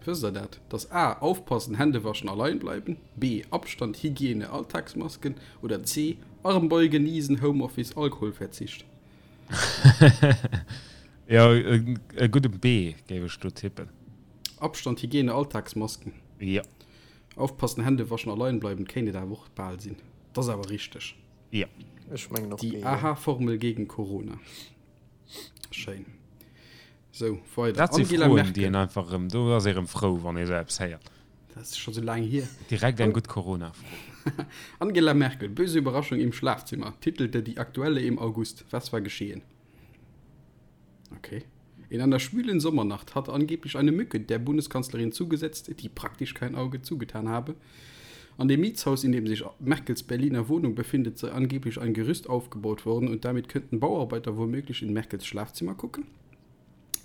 Wësst der dat? Dass A, Aufpassen, Hände waschen, allein bleiben, B, Abstand, Hygiene, Alltagsmasken oder C, Armbeugen, Niesen, Homeoffice, Alkoholverzicht? Jo, e gudde B géif ech do tippen. Abstand, Hygiene, Alltagsmasken. Jo. Aufpassen, Hände waschen, allein bleiben kéint et awer och bal sinn. Dat ass awer richteg. Jo. Ech mengen och B, Die jo. AHA-Formel gegen Corona. Schéin. Sou, weider. Dat si Angela Froen, Merkel. déi een einfach erëm, do ass ee rëm frou, wann ee sou eppes héiert. Dat ass scho sou laang hier. Direkt eng gutt Corona-Fro. Angela Merkel, Böse Überraschung im Schlafzimmer, titelte die Aktuelle im August. Was war geschehen? Okay. In einer schwülen Sommernacht hat angeblich eine Mücke der Bundeskanzlerin zugesetzt, die praktisch kein Auge zugetan habe. An dem Mietshaus, in dem sich Merkels Berliner Wohnung befindet, sei angeblich ein Gerüst aufgebaut worden und damit könnten Bauarbeiter womöglich in Merkels Schlafzimmer gucken.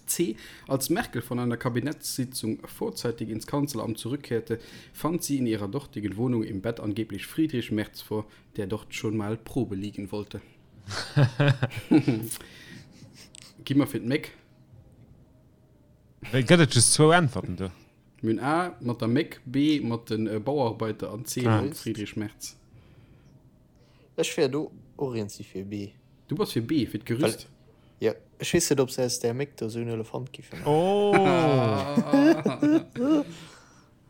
C. Als Merkel von einer Kabinettssitzung vorzeitig ins Kanzleramt zurückkehrte, fand sie in ihrer dortigen Wohnung im Bett angeblich Friedrich Merz vor, der dort schon mal Probe liegen wollte. Gi mer fir d'Méck. Gëtt et just zwou Äntwerten do? Mir hunn A mat der Méck, B mat de Bauarbeiter an C mam Friedrich Merz. Ech wär do och eens si fir B. Du bass fir B, fir d'Gerüst? Jo, ech weess net, ob se aus där Méck do esou en Elefant giffe maachen.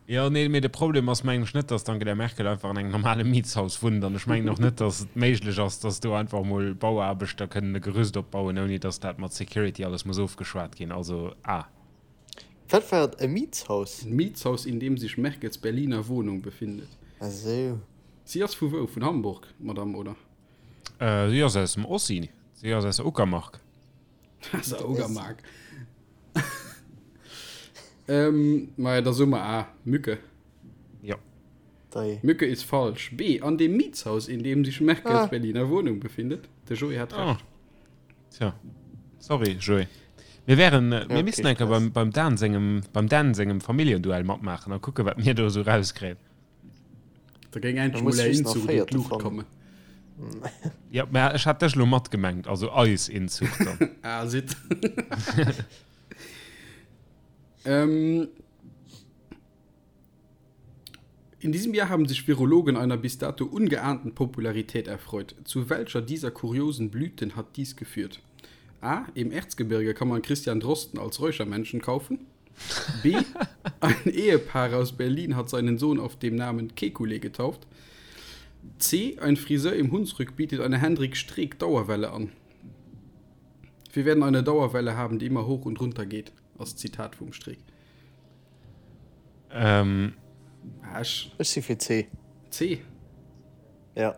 Jo, nee, mee de Problem ass mengen ech net, dass d'Angela Merkel einfach an engem normale Mietshaus wunnt an ech mengen och net, dass et méiglech ass, dass do einfach mol Bauaarbechter kënnen e Gerüst opbauen, ouni dass dat mat Security alles muss ofgeschwat ginn. Also A. Wat war et? E Mietshaus? En Mietshaus, in dem sich Merkels Berliner Wohnung befindet. Ah sou. Si ass vu wou? Vun Hamburg, d'Madame, oder? Si ass aus dem Ossi. Si ass aus der Uckermark. Aus der Uckermark. Ähm, maja, da soe mer A, Mücke. Jo. Dei. Mücke ist falsch. B, an dem Mietshaus, in dem sich Merkels Ah. Berliner Wohnung befindet. De Joé hat Ah. Recht. Tja. Sorry, Joé. Mir wären, äh, mir Ja, missten okay, eng Kéier Stress. beim, beim Dan sengem, beim Dan sengem Familljenduell matmaachen a kucke, wat mir do esou rauskréien. Da géing Da endlech muss mol är just nach Inzucht un Véierte d'Luucht fannen. kommen. Ja, mä ech hat dech elo matgemengt, also eis Inzucht dann. Ah, sitt. Ähm, in diesem Jahr haben sich Virologen einer bis dato ungeahnten Popularität erfreut. Zu welcher dieser kuriosen Blüten hat dies geführt? A. Im Erzgebirge kann man Christian Drosten als Räuchermännchen kaufen. B. Ein Ehepaar aus Berlin hat seinen Sohn auf dem Namen Kekulé getauft. C. Ein Friseur im Hunsrück bietet eine Hendrik Streeck Dauerwelle an. Wir werden eine Dauerwelle haben, die immer hoch und runter geht. Ass d'Zitat vum Streeck. Ähm. Ah, ech. Ech si fir C. C? Ja.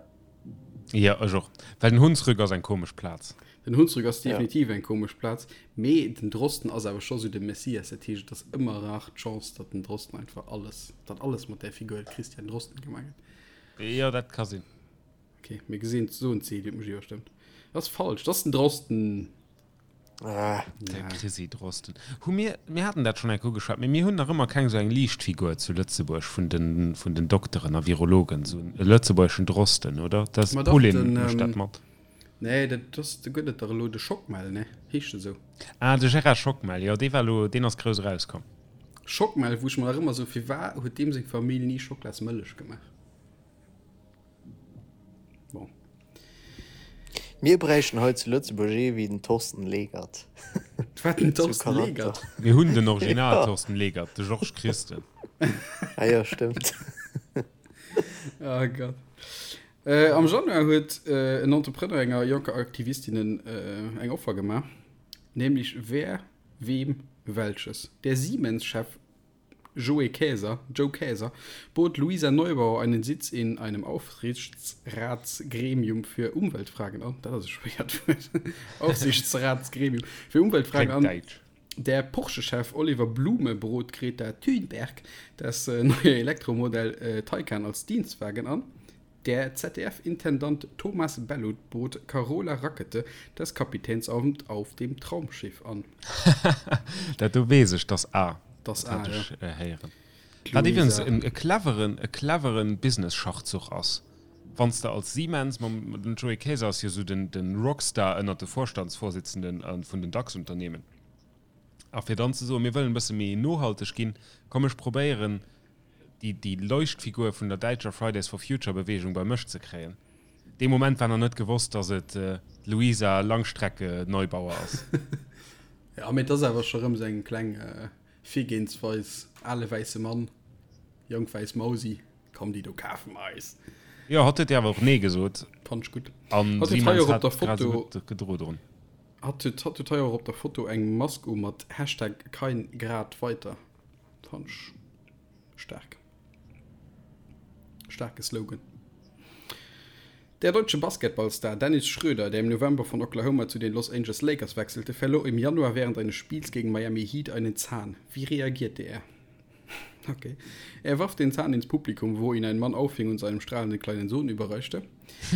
Jo, ech och. Well den Hunsrück ass eng komesch Plaz. Den Hunsrück ass Ja. definitiv eng komesch Plaz, mee den Drosten ass awer scho sou de Messias. Dat heescht, et ass ëmmer rar d'Chance, datt den Drosten einfach alles, datt alles mat där Figur Christian Drosten gemaach gëtt. Jo, dat ka sinn. Ok, mir gesinn soen C, Dir hutt mech iwwerstëmmt. Dat ass falsch, dat ass den Drosten. Ah. De Chrissy Drosten. Hu mir, mir haten dat schonn eng Kéier ugeschwat, mee mir hunn nach ëmmer keng esou eng Liichtfigur zu Lëtzebuerg vun den, vun den Dokteren a Virologen, esou e lëtzebuergeschen Drosten, oder? Dat Ma dach, Pauline den, mécht dat ähm, mat. Nee, dat ass, do gëtt et dach elo de Schockmel, ne? Heescht e sou? Ah, de Gérard Schockmel, jo, dee war elo, deen ass grouss erauskomm. Schockmel, wou ech mer nach ëmmer sou, firwat huet deem seng Famill ni Schocklasmëllech gemaach? Bon. Mir bräichten hei zu Lëtzebuerg ee wéi den Thorsten Legert. Wat den Sou Thorsten Charakter. Legert? Mir hunn den Original Ja. Thorsten Legert, de Georges Christen. Ah jo, stëmmt. Oh Gott. Am Januar huet en Entrepreneur enger jonker Aktivistin eng Offer gemaach, nämlech wer, wem, welches. Der Siemens-Chef Joe Kaeser, Joe Kaeser bot Luisa Neubauer einen Sitz in einem Aufsichtsratsgremium für Umweltfragen an. Dat ass e schwéiert Wuert. Aufsichtsratsgremium für Umweltfragen an. Der Porsche-Chef Oliver Blume brot Greta Thunberg das neue Elektromodell Taycan als Dienstwagen an. Der ZDF-Intendant Thomas Bellut bot Carola Rackete das Kapitänsamt auf dem Traumschiff an. Dat do weess ech, dass A. Dat hat ech héieren. Wat iwwregens e cleveren, e cleveren Business-Schachzuch ass, wann s de als Siemens, mam, den Joe Kaeser ass jo esou den, den Rockstar ënnert de Vorstandsvorsitzenden vun den DAX-Unternehmen, a fir dann ze soen, mir wëllen e bësse méi nohalteg ginn, komm ech probéieren, déi, déi Leuchtfigur vun der däitscher Fridays for Future Beweegung bei mech ze kréien. Dee Moment war nach net gewosst, datt et d'Luisa Langstrecke Neubauer ass. Jo, mee et ass awer scho rëm esou eng kleng Virgehensweis, ale wäisse Mann, jonk wäiss Mausi, komm déi do kafe mer eis. Jo, hatt huet jo awer och Nee gesot. Fannt ech gutt. An Hatt huet hei Siemens och op hat der grad esou Foto, gutt gedro drun. hatt huet, hatt huet hei och op der Foto eng Mask u mat Hashtag kein Grad weiter. Fand ech staark. Staarke Slogan. Der deutsche Basketballstar Dennis Schröder, der im November von Oklahoma zu den Los Angeles Lakers wechselte, verlor im Januar während eines Spiels gegen Miami Heat einen Zahn. Wie reagierte er? Okay. Er warf den Zahn ins Publikum, wo ihn ein Mann auffing und seinem strahlenden kleinen Sohn überreichte.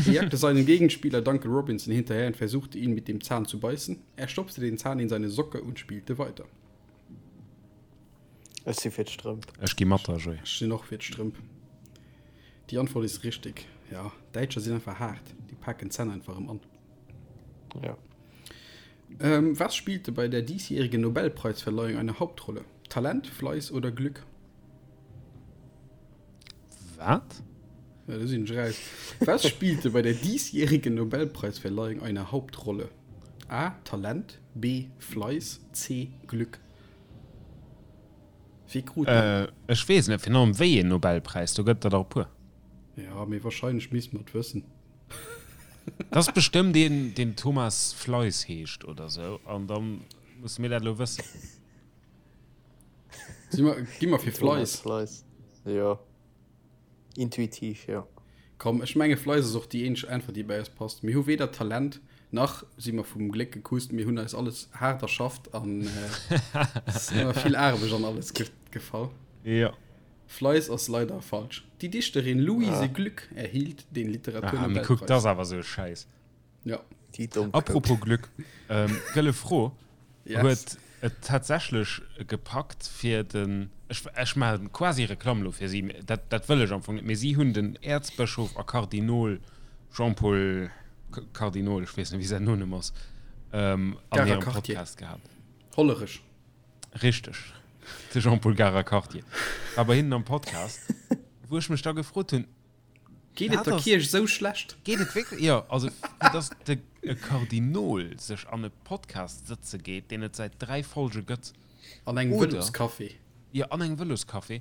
Er jagte seinen Gegenspieler Duncan Robinson hinterher und versuchte ihn mit dem Zahn zu beißen. Er stopfte den Zahn in seine Socke und spielte weiter. Ech si fir d'Strëmp. Ech gi mat der, Joé. Ech sinn och fir d'Strëmp. Déi Antwort is richtig. Ja, Däitscher sinn einfach haart. Déi paken d'Zänn einfach erëm an. Ja. Ähm, was spielte bei der diesjährigen Nobelpreisverleihung eine Hauptrolle? Talent, Fleiß oder Glück? Wat? Ja, do sinn ech raus. Was spielte bei der diesjährigen Nobelpreisverleihung eine Hauptrolle? A. Talent, B. Fleiß, C. Glück. Wee krut den? Ech weess net, virun allem wéi een Nobelpräis, do gëtt der der e puer. Ja, mee wahrscheinlech misst mer et wëssen. Dat ass bestëmmt een, deen Thomas Fleiss heescht oder sou, an da musse mir dat elo wëssen. Si mer, gi mer fir Thomas Fleiss? Fleiss, jo. Intuitiv, jo. Komm, ech menge Fleiss ass och déi eenzeg Äntwert, déi bei eis passt. Mir hu weder Talent, nach si mer vum Gléck gekusst. Mir hunn eis alles haart erschafft an et ass ëmmer vill Aarbecht an alles gefall. Jo. Fleiss ass leider falsch. Déi Dichterin Louise Glück erhielt den Ah, mee Literaturnobelpreis. kuck, dat ass awer esou e Schäiss. Ja. Déi domm Apropos Glück, ähm, gëlle Fro, Yes. huet et tatsächlech gepackt fir den, ech, ech maachen quasi Reklamm elo fir si, mee dat, dat wëll ech am Fong net, mee si hunn den Äerzbëschof a Kardinol Jean-Paul Kardinol, ech weess net wéi säin Nonumm ass, ähm, an Garer hirem Quartier. Podcast gehat. Hollerech. Richteg, de Jean-Paul Garer Quartier war bei hinnen am Podcast, wou ech mech da gefrot hunn, Geet et der Kierch esou schlecht? Geet et wierklech? Jo, also fir dass de e Kardinol sech an e Podcast sëtze geet, deen et säit 3 Folge gëtt. An engem Vëloscafé. Jo, an engem Vëloscafé.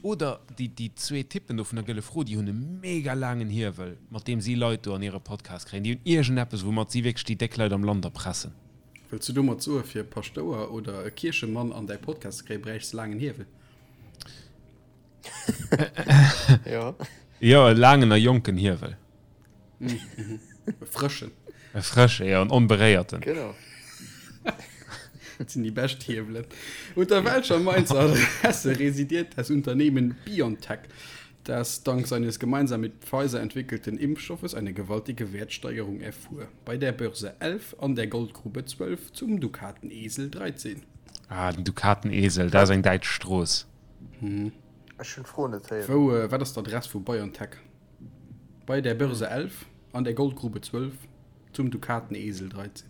Oder déi, déi zwee Typpen do vun der Gëlle Fro, déi hunn e mega laangen Hiewel, mat deem si Leit do an hire Podcast kréien. Déi hunn iergendeppes, woumat si wierklech déi déck Leit am Land erpressen. Wëlls du domat soe fir e Paschtouer oder e Kierchemann an däi Podcast ze kréien, bräichs de laangen Hiewel? Ja. Jo, e laangen a jonken Hiewel. E frëschen. E frësche, jo, en onberéierten. Genau. Dat sinn déi bescht Hiewelen. Unter welcher Mainzer Adresse residiert das Unternehmen BioNTech, das dank seines gemeinsam mit Pfizer entwickelten Impfstoffes eine gewaltige Wertsteigerung erfuhr? Bei der Börse 11, an der Goldgrube 12, zum Dukatenesel 13. Ah, den Dukatenesel, dat ass eng däitsch Strooss. Ech hunn d'Fro net héieren. Wou, wat ass d'Adress vu BioNTech? Bei der Börse 11, an der Goldgrube 12, zum Dukatenesel 13.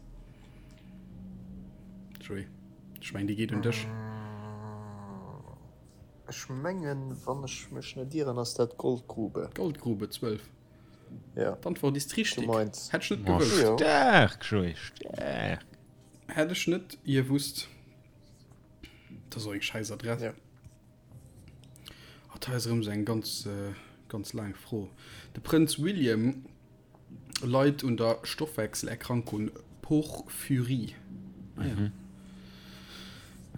Joé, ech mengen déi geet un dech. Ech mengen, wann ech mech net ieren, ass dat d'Goldgrube. Goldgrube 12. Ja. D'Antwort ist richtig. Zu Mainz. Hätt ech net Oh, gewusst. Jo. staark, Joé, staark. Hätt ech net gewusst. Dat ass och eng schäiss Adress. Ja. Oh, da ass erëm esou eng ganz, äh, ganz. Ganz laang Fro. De Prënz William leit un der Stoffwechselerkrankung Porphyrie. Ah ja. Mhm.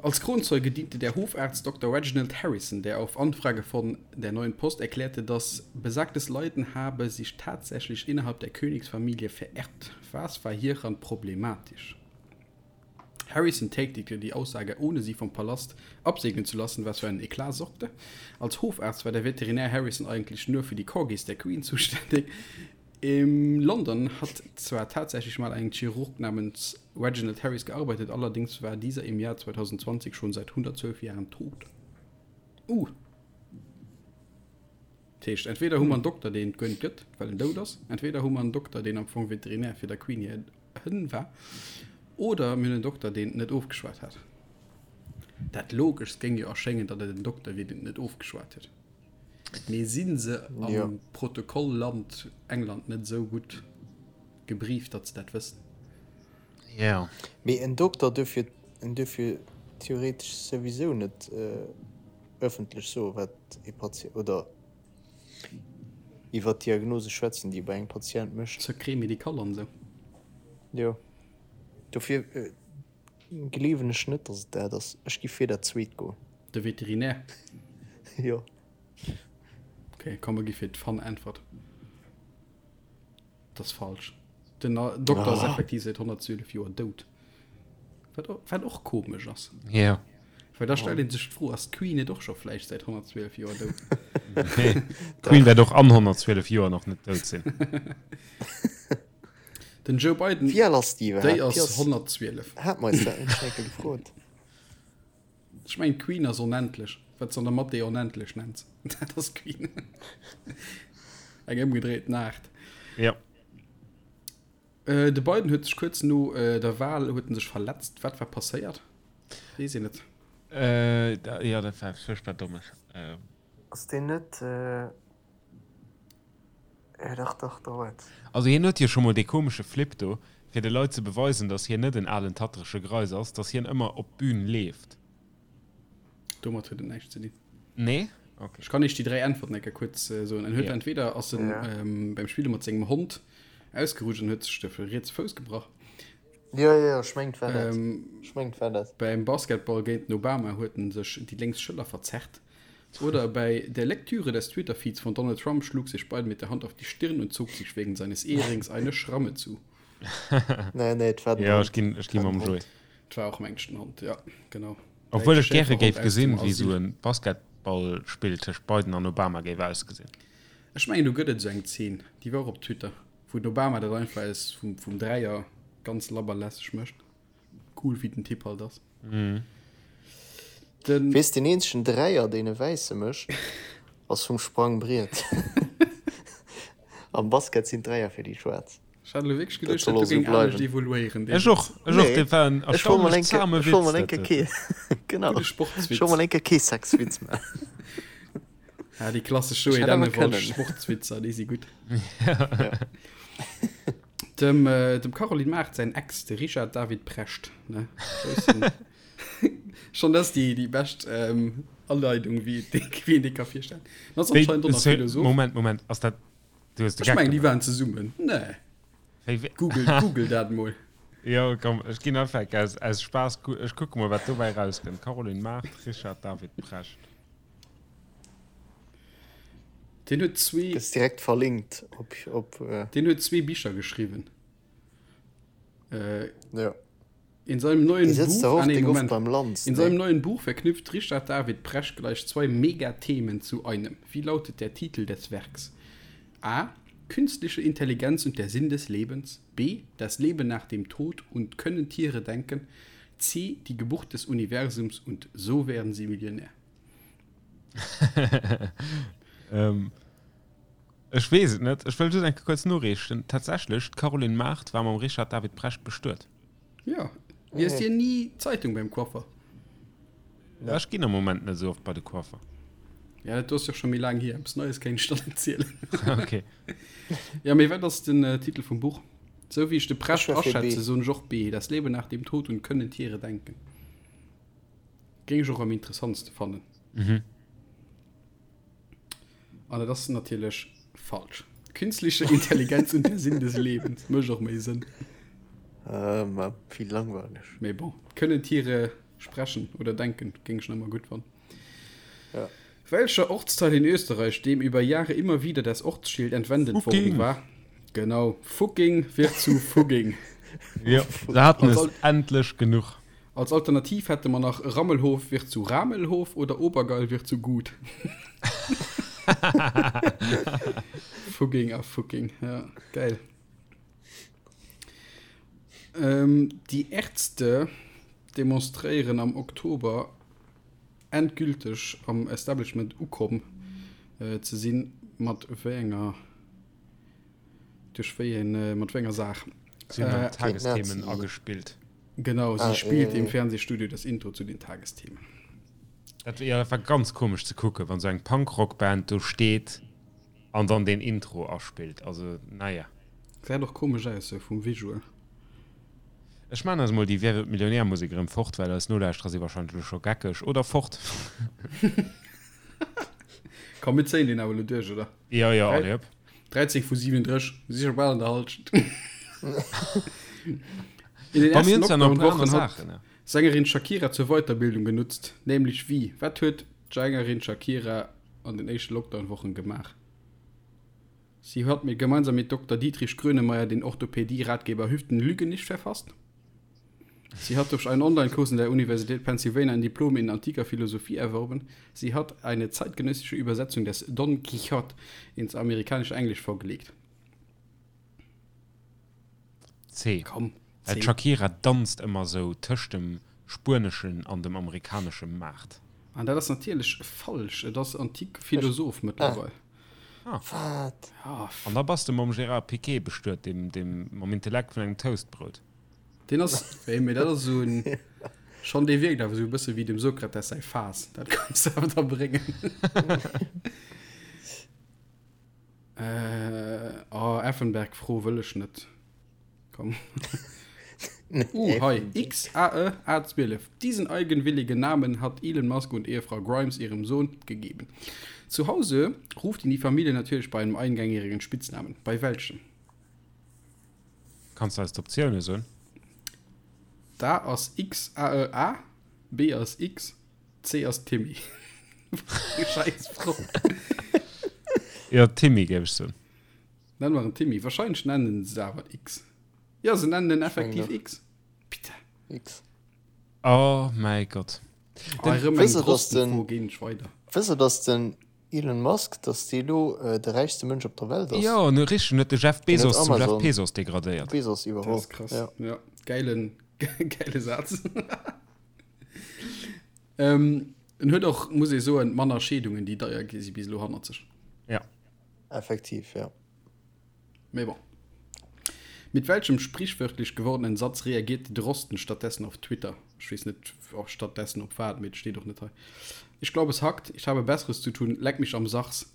Als Kronzeuge diente der Hofarzt Dr. Reginald Harrison, der auf Anfrage von der Neuen Post erklärte, dass besagtes Leiden habe sich tatsächlich innerhalb der Königsfamilie vererbt. Was war hieran problematisch? Harrison tätigte die Aussage, ohne sie vom Palast absegnen zu lassen, was für einen Eklat sorgte. Als Hofarzt war der Veterinär Harrison eigentlich nur für die Corgis der Queen zuständig. In London hat zwar tatsächlich mal ein Chirurg namens Reginald Harris gearbeitet, allerdings war dieser im Jahr 2020 schon seit 112 Jahren tot. Uh. Dat heescht, entweder hu mer en Dokter, deen et guer net gëtt, well en dout ass, entweder hu mer en Dokter, deen am Fong Veterinär fir der Queen hir Hënn war, oder mir hunn en Dokter, deen et net ofgeschwat hat. Dat Logeschst géing jo erschéngen, datt et en Dokter wier, deen et net ofgeschwat huet. Mee si se am jo. Protokoll-Land England net esou gutt gebrieft, datt se dat wëssen? Jo. Mee en Dokter duerf jo, en duerf jo theoretesch souwisou net ëffentlech soen, wat e Patient, oder iwwer d'Diagnose schwätzen, déi e bei engem Patient mécht. Secret médical an esou. Jo. Dofir gleewen ech net, datt et dat ass. Ech gi fir dat zweet goen. De Veterinär? Jo. Ok, komm mer gi fir d'Fun-Äntwert. Dat ass falsch. Den Dokter ass effektiv säit 112 Joer dout. Wat, wat och komesch ass. Ja. Well da stellt een sech d'Fro, ass d'Queen net och scho vläicht säit 112 Joer dout? Nee, d'Queen wäert och an 112 Joer nach net dout sinn. Den Joe Biden, Wéi al ass déi iwwerhaapt? déi ass 112. Hat mer eis dat net schon eng Kéier gefrot? Ech mengen d'Queen ass onendlech. Wat s an der Mathé onendlech nenns, dat ass d'Queen. Eng ëmgedréiten Aart. Ja. Äh, de Biden huet sech kuerz no äh, der Wahl huet en sech verletzt. Wat war passéiert? Weess een et? Äh, da, ja, dat war furchtbar dommes. Äh. Ass deen net. Äh, ja, dach, dach, da war et. Also hien huet jo scho mol dee komesche Flip do, fir de Leit ze beweisen, datt hien net en alen tatterege Greis ass, datt hien ëmmer op d'Bün leeft. Domat huet et näischt ze dinn. Nee? Okay. Ech kann iech déi 3 Äntwerten eng Kéier kuerz soen. En huet ja. entweder ass en ja. ähm, beim Spille mat sengem Hond ausgerutscht an huet sech de rietse Fouss gebrach. Ja, ja, ech mengt war dat. Ähm, ech mengt war dat. Beim Basketball géint den Obama huet en sech déi lénks Schëller verzerrt. Oder bei der Lektüre des Twitter-Feeds von Donald Trump schlug sich Biden mit der Hand auf die Stirn und zog sich wegen seines Ehrings eine Schramme zu. nee, nee, et war den Ja, ech ginn, ech ginn mam Joé. Et war och mengt den Hond, ja, genau. Obwuel ech gäre géif gesinn, wéi sou e Basketballspill tëscht Biden an Obama géif ausgesinn. Ech mengen do gëtt et esou eng Zeen, déi war och op Twitter, wou den Obama dat einfach aus vum, vum Dräier ganz labber lässeg mécht. Cool wéi den Typ halt ass. Den. Weess, deen eenzegen Dräier, deen e Wäisse mécht, ass vum Sprangbriet. Am Basket sinn d'Dräier fir déi Schwaarz. Ech hat elo wierklech geduecht, dat do géing anescht evoluéieren. Ech och, ech och, dat war en erstaunlech zahme Witz. Ech wollt mol eng Kéier, genau, Gudde Sportswitz. Ech wollt mol eng Kéier kee Sexwitz maachen. Ja, déi klassesch Joé Dennewald Sportswitzer, déi si gutt. Dem, dem Caroline Mart säin Ex, de Richard David Precht, ne? Schonn dat ass déi, déi bescht ähm, Aleidung, wéi wéi een dee ka virstellen. Dat ass anscheinend och nach Philosoph. Moment, Moment, ass dat Du hues de Ech mengen, déi waren zesummen. Nee. Wéi, wéi? Google, Google dat mol. Jo, komm, ech ginn einfach aus, aus Spaass, ech kucke mol, wat dobäi rauskënnt. Caroline Mart, Richard David Precht. Deen huet zwee. Gëss direkt verlinkt op, op. Deen huet zwee Bicher geschriwwen. Äh, ja. In seinem neuen Buch, ah, nee, Moment. Beim Lanz, In seinem neuen Buch verknüpft Richard David Precht gleich zwei Megathemen zu einem. Wie lautet der Titel des Werks? A. Künstliche Intelligenz und der Sinn des Lebens. B. Das Leben nach dem Tod und können Tiere denken. C. Die Geburt des Universums und so werden sie Millionär. ähm, ech weess et net. Ech wëll just eng Kéier kuerz noreechen. Tatsächlech, d'Caroline Mart war mam Richard David Precht bestuet. Ja, liest Dir ni d'Zeitung beim Coiffer? Ja, ech ginn am Moment net esou oft bei de Coiffer. Ja, dat do ass jo scho méi laang hier. Eppes Neies kéint ech dann net zielen. Okay. Ja, mee wat ass den äh, Titel vum Buch? Sou wéi ech de Precht Ech war fir B. aschätze, soen ech och B. Das Leben nach dem Tod und können Tiere denken. Géing ech och am interessantste fannen. Mhm. An dat ass natierlech falsch. Künstliche Intelligenz und der Sinn des Lebens mécht och méi Sënn. Äh, ma vill langweileg. Mee bon, können Tiere sprechen oder denken, géing ech nach ëmmer gutt fannen. Ja. Welcher Ortsteil in Österreich, dem über Jahre immer wieder das Ortsschild entwendet worden Fucking. war? Genau, Fucking wird zu Fugging. Jo, se haten Als es Al- endlech genuch. Als Alternativ hätte mer nach Rammelhof wird zu Ramelhof oder Obergeil wird zu Gut. Fugging a Fucking, ja, geil. Ähm, die Ärzte demonstréieren am Oktober endgülteg am Establishment ukomm äh, ze sinn, mat wéi enger duerch wéi een, äh, mat wéi enger Saach. Si hunn Äh, an Tagesthemen Nazi. agespillt. Genau, sie Ah, spielt äh, im Fernsehstudio das Intro zu den Tagesthemen. Dat, ja, dat war ganz komesch ze kucken, wann sou eng Punkrock-Band do steet an dann deen Intro aspillt. Also, naja. Gesäit och komesch aus, sou vum Visual. Ech maan eis mol déi Wer wird Millionär Musek erëm fort, well eis Nolauschterer si wahrscheinlech elo scho geckeg oder fort. Komm, mir zéien deen awer elo duerch, oder? Jo, jo, allez hop. 13 vu 37, mir si scho bal an der Halschent. In den Bei mir ersten hunn se nach e puer aner Lockdown-Wochen hat Saachen, ja. Sängerin Shakira zur Weiterbildung genutzt, nämlech wie? Wat huet d'Sängerin Shakira an den éischte Lockdown-Wochen gemaach? Sie hat mit gemeinsam mit Dokter Dietrich Grönemeyer den Orthopädie-Ratgeber Hüften lügen nicht verfasst. Sie hat durch einen Online-Kurs in der Universität Pennsylvania ein Diplom in antiker Philosophie erworben. Sie hat eine zeitgenössische Übersetzung des Don Quichotte ins amerikanische Englisch vorgelegt. C. Komm, Well C. d'Shakira danzt ëmmer sou tëscht dem spueneschen an dem amerikanesche Maart. An dat ass natierlech falsch. Et ass antik Philosoph mëttlerweil. Ah. Wat? Ja, An da bass de mam Gérard Piqué bestuet, deem, deem mam Intellekt vun engem Toastbrout. Deen ass, wéi, mee dat ass esou en, schonn, dee wierkt awer esou e bësse wéi dem Sokrates säi Faass. Dat kanns de awer da bréngen. Äh, oh, Effenberg-Fro wëll ech net. Komm. Uh, hei, XAE A12. Diesen eigenwilligen Namen hat Elon Musk und Ehefrau Grimes ihrem Sohn gegeben. Zu Hause ruft ihn die Familie natürlich bei einem eingängigen Spitznamen. Bei welchem? Kanns du eis d'Optioune soen? Da ass X A E A, B ass X, C ass Timmy. Scheiß Fro. Jo, Timmy géif ech soen. Nennen mer en Timmy. Wahrscheinlech nennen se awer X. Jo, se nennen en effektiv X. Bitte. X. Oh mäi Gott. Oh, erëm eng Wësst der, dass den- Drostenfro, ginn ech weider. Wësst der, dass den Elon Musk, dass dee elo de räichste Mënsch op der Welt ass? Jo, no richteg, en huet de Jeff Deen huet Bezos zum Jeff Amazon. Pesos degradéiert. Bezos Dat iwwerholl. ass krass. Ja. Ja, geilen, geile Saz. ähm, en huet och, muss ee soen, manner Scheedungen, déi deier gi si bis elo hannert sech. Ja. Effektiv, ja. Mee bon. Mit welchem sprichwörtlich gewordenen Satz reagiert Drosten stattdessen auf Twitter? Ech weess net, och stattdessen op wat, mee et steet och net hei. Ich glaube, es hackt. Ich habe Besseres zu tun. Leck mich am Sachs.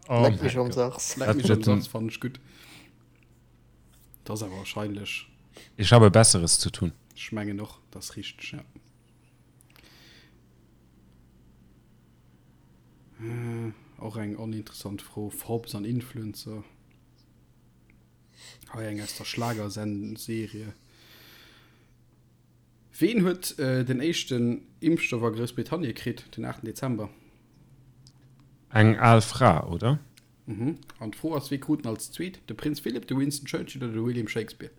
Oh Leck mich mäi am Gott. Sachs. Leck mich am Dat- Sachs fand ech gutt. Dat ass awer wahrscheinlech. Ich habe Besseres zu tun. Ech mengen och, dat ass richteg, ja. Och eng oninteressant Fro, Forbes an Influencer. Hei eng aus der Schlagerserie. Ween huet den éischten Impfstoff a Groussbritannien kritt den 8 Dezember? Eng al Fra, oder? Mhm. An d'Fro ass, wee krut en als zweet? De Prinz Philip, de Winston Churchill oder de William Shakespeare?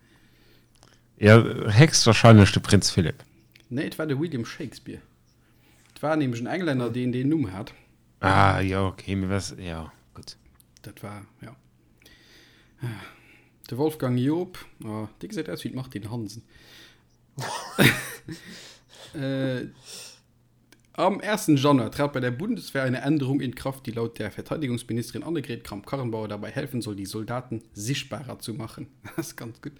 Jo, héchstwahrscheinlech de Prinz Philip. Nee, et war de William Shakespeare. Et war nämlech en Englänner, deen deen Numm hat. Ah, jo, okay, mee was, jo, gutt. Dat war, jo. De Wolfgang Joop, oh, dee gesäit aus wéi d'Martine Hansen. äh, am 1. Januar trat bei der Bundeswehr eine Änderung in Kraft, die laut der Verteidigungsministerin Annegret Kramp-Karrenbauer dabei helfen soll, die Soldaten sichtbarer zu machen. Das ist ganz gut.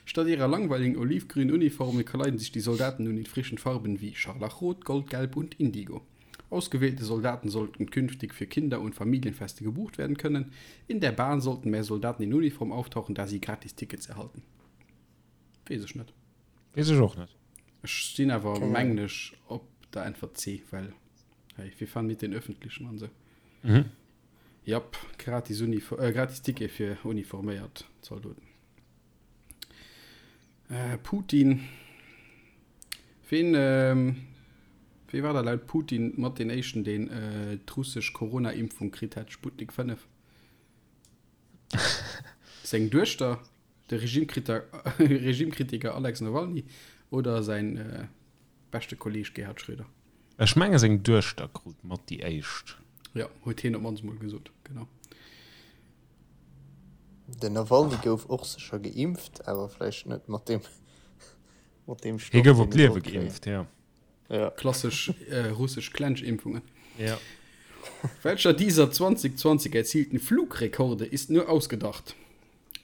Statt ihrer langweiligen olivgrünen Uniformen kleiden sich die Soldaten nun in frischen Farben wie Scharlachrot, Goldgelb und Indigo. Ausgewählte Soldaten sollten künftig für Kinder- und Familienfeste gebucht werden können. In der Bahn sollten mehr Soldaten in Uniform auftauchen, da sie Gratistickets erhalten. Weess ech net. Weess ech och net. Ech sinn awer, mengen ech, op der Äntwert C, well hey, wir fahren mit den Öffentlichen an sou. Mhm. Japp, gratis, Unif äh, gratis Ticket fir uniforméiert Zaldoten. Äh, Putin. Ween, ähm, wee war da laut Putin mat deen éischten, deen äh, d'russesch Corona-Impfung kritt hat, Sputnik 5? Seng Duechter, de Regimekritiker, Regimekritiker Alex Nawalny oder säin äh, beschte Kolleeg Gerhard Schröder? Ech menge seng Duechter krut mat déi éischt. Jo, huet hien op mannst mol gesot, genau. Den Nawalny gouf och sécher geimpft, awer vläicht net mat deem, mat deem Stoff, Hie gouf op d'Liewe geimpft, jo. Ja. Klassesch äh, russesch Klensch-Impfungen. Ja. Welcher dieser 2020 erzielten Flugrekorde ist nur ausgedacht?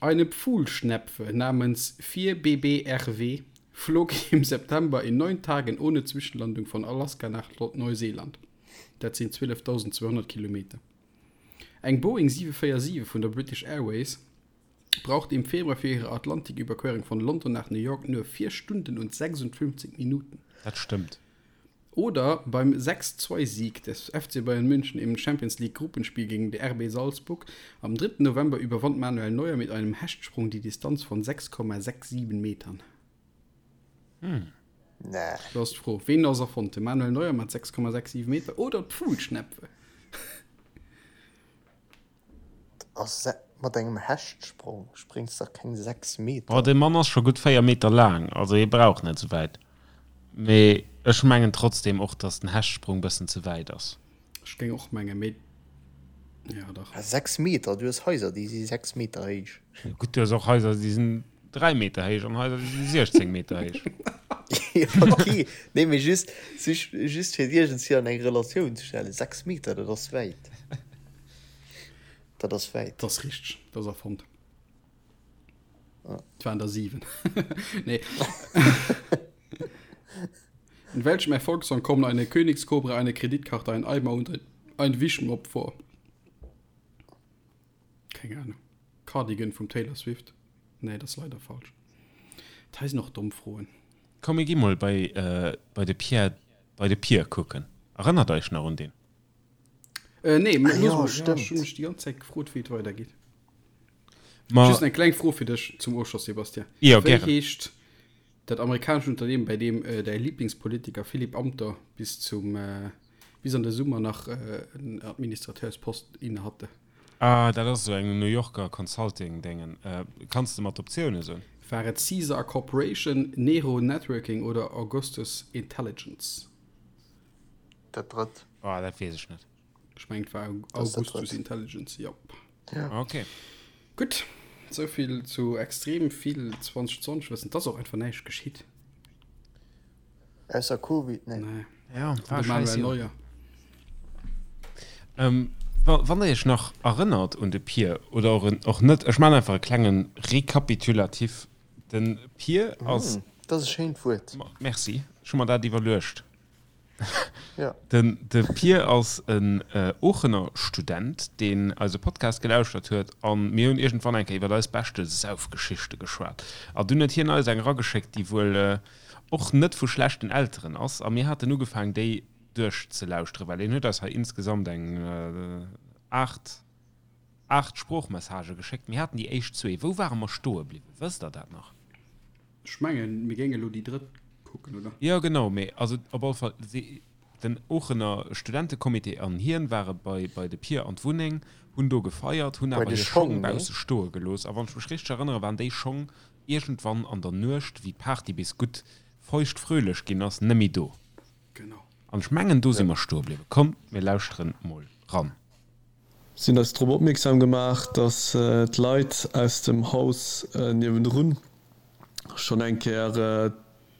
Eine Pfuhlschnepfe namens 4BBRW flog im September in neun Tagen ohne Zwischenlandung von Alaska nach Neuseeland. Dat sinn 12.200 Kilometer. Eng Boeing 747 vun der British Airways brauchte im Februar fir hire Atlantiküberquerung von London nach New York nur 4 Stunden und 56 Minuten. Dat stëmmt. Oder beim 6-2-Sieg des FC Bayern München im Champions-League-Gruppenspiel gegen RB Salzburg am 3. November überwand Manuel Neuer mit einem Hechtsprung die Distanz von 6,67 Metern. Hm. Nee. Do ass d'Fro, ween ass erfonnt? De Manuel Neuer mat 6,67 Meter oder d'Pfuhlschnepfe? Ass mat engem Hechtsprong spréngs dach keng 6 Meter. Oh, dee Mann ass scho gutt 4 Meter laang, also hie brauch net sou wäit. Mee ech mengen trotzdem och, dass den Hechtsprung bëssen ze wäit ass. Ech géing och mengen, mee jo dach. 6 Meter, du hues Haiser déi si 6 Meter héich. Gutt, du hues och Haiser déi sinn 3 Meter héich an Haiser déi si 16 Meter héich. Jo ok, nee mee just just fir et iergendswéi an eng Relatioun ze stellen, 6 Meter dat ass wäit. Dat ass wäit. Dat ass richteg, dat ass erfonnt. Et waren der 7. Nee. In welchem Erfolgssong kommen eine Königskobra, eine Kreditkarte, ein Eimer und ein, ein Wischmopp vor? Keng Ahnung. Cardigan vum Taylor Swift? Nee, dat ass leider falsch. Dat hei sinn och domm Froen. Komm mir gi mol bei, äh, bei de Pierre, bei de Pier kucken. Erënnert Eich nach un deen? Äh, nee, ah, ja, stimmt. Ech hunn mech déi ganz Zäit gefrot, wéi et weidergeet. Ma, Just eng kleng Fro fir dech zum Ofschloss, Sebastian. Ja, wéi gären. heescht dat amerikanescht Unternehmen, bei deem äh, däi Lieblingspolitiker Philipp Amthor bis zum äh, bis an de Summer nach äh, en Administrateurspost inne hatte? Ah, dat ass esou eng New Yorker Consulting-Déngen. Äh, kanns de mer d'Optioune soen? War et Caesar Corporation, Nero Networking oder Augustus Intelligence? Dat drëtt. Oh, dat weess ech net. Ech mengen, et war Augustus Intelligence, jop. Ja. Okay. Gutt, souvill zu extrem vill 2020 Wëssen. Et ass och einfach näischt geschitt. Ausser Covid, nee. Nee. Ja, war de Manuel Neuer. Ähm, wann der iech nach erënnert un de Pier oder och, och net, ech man einfach e klengen Rekapitulatif. Den Pier ass. Mm, dat ass e schéint Wuert. Merci, ech hu mer dat iwwerluecht. Ja. Den de Pier ass en Oochener Student, deen eise Podcast gelauschtert huet an mir hunn iergendwann eng Kéier iwwer eis beschte Saufgeschichte geschwat. A dunn huet hien eis eng erageschéckt, déi wuel och net vu schlechten Elteren ass a mir haten ugefaang déi duerchzelauschteren, well hien huet eis hei insgesamt eng 8, 8 Sproochmessagë geschéckt. Mir haten déi éischt zwee. Wou ware mer stoe bliwwen? Wësst der dat nach? Ech mengen, mir géinge lo déi drëtt kucken, oder? Jo, genau, mee also op alle Fall, si, den Oochener Studentecomité an hien ware bei, bei de Pier an d'Wunneng, hunn do gefeiert, hunn awer hir Schong bausse stoe gelooss. A wann ech mech richteg erënnere, waren déi Schong iergendwann an der Nuecht, wéi d'Party bis gutt feuchtfröhlech ginn ass, nëmmi do. Genau. An ech mengen, do si mer stoe bliwwen. Kommt, mir lauschteren mol ran. Si hunn eis drop opmierksam gemaach, dass d'Leit aus dem Haus niewendrun schonn eng Kéier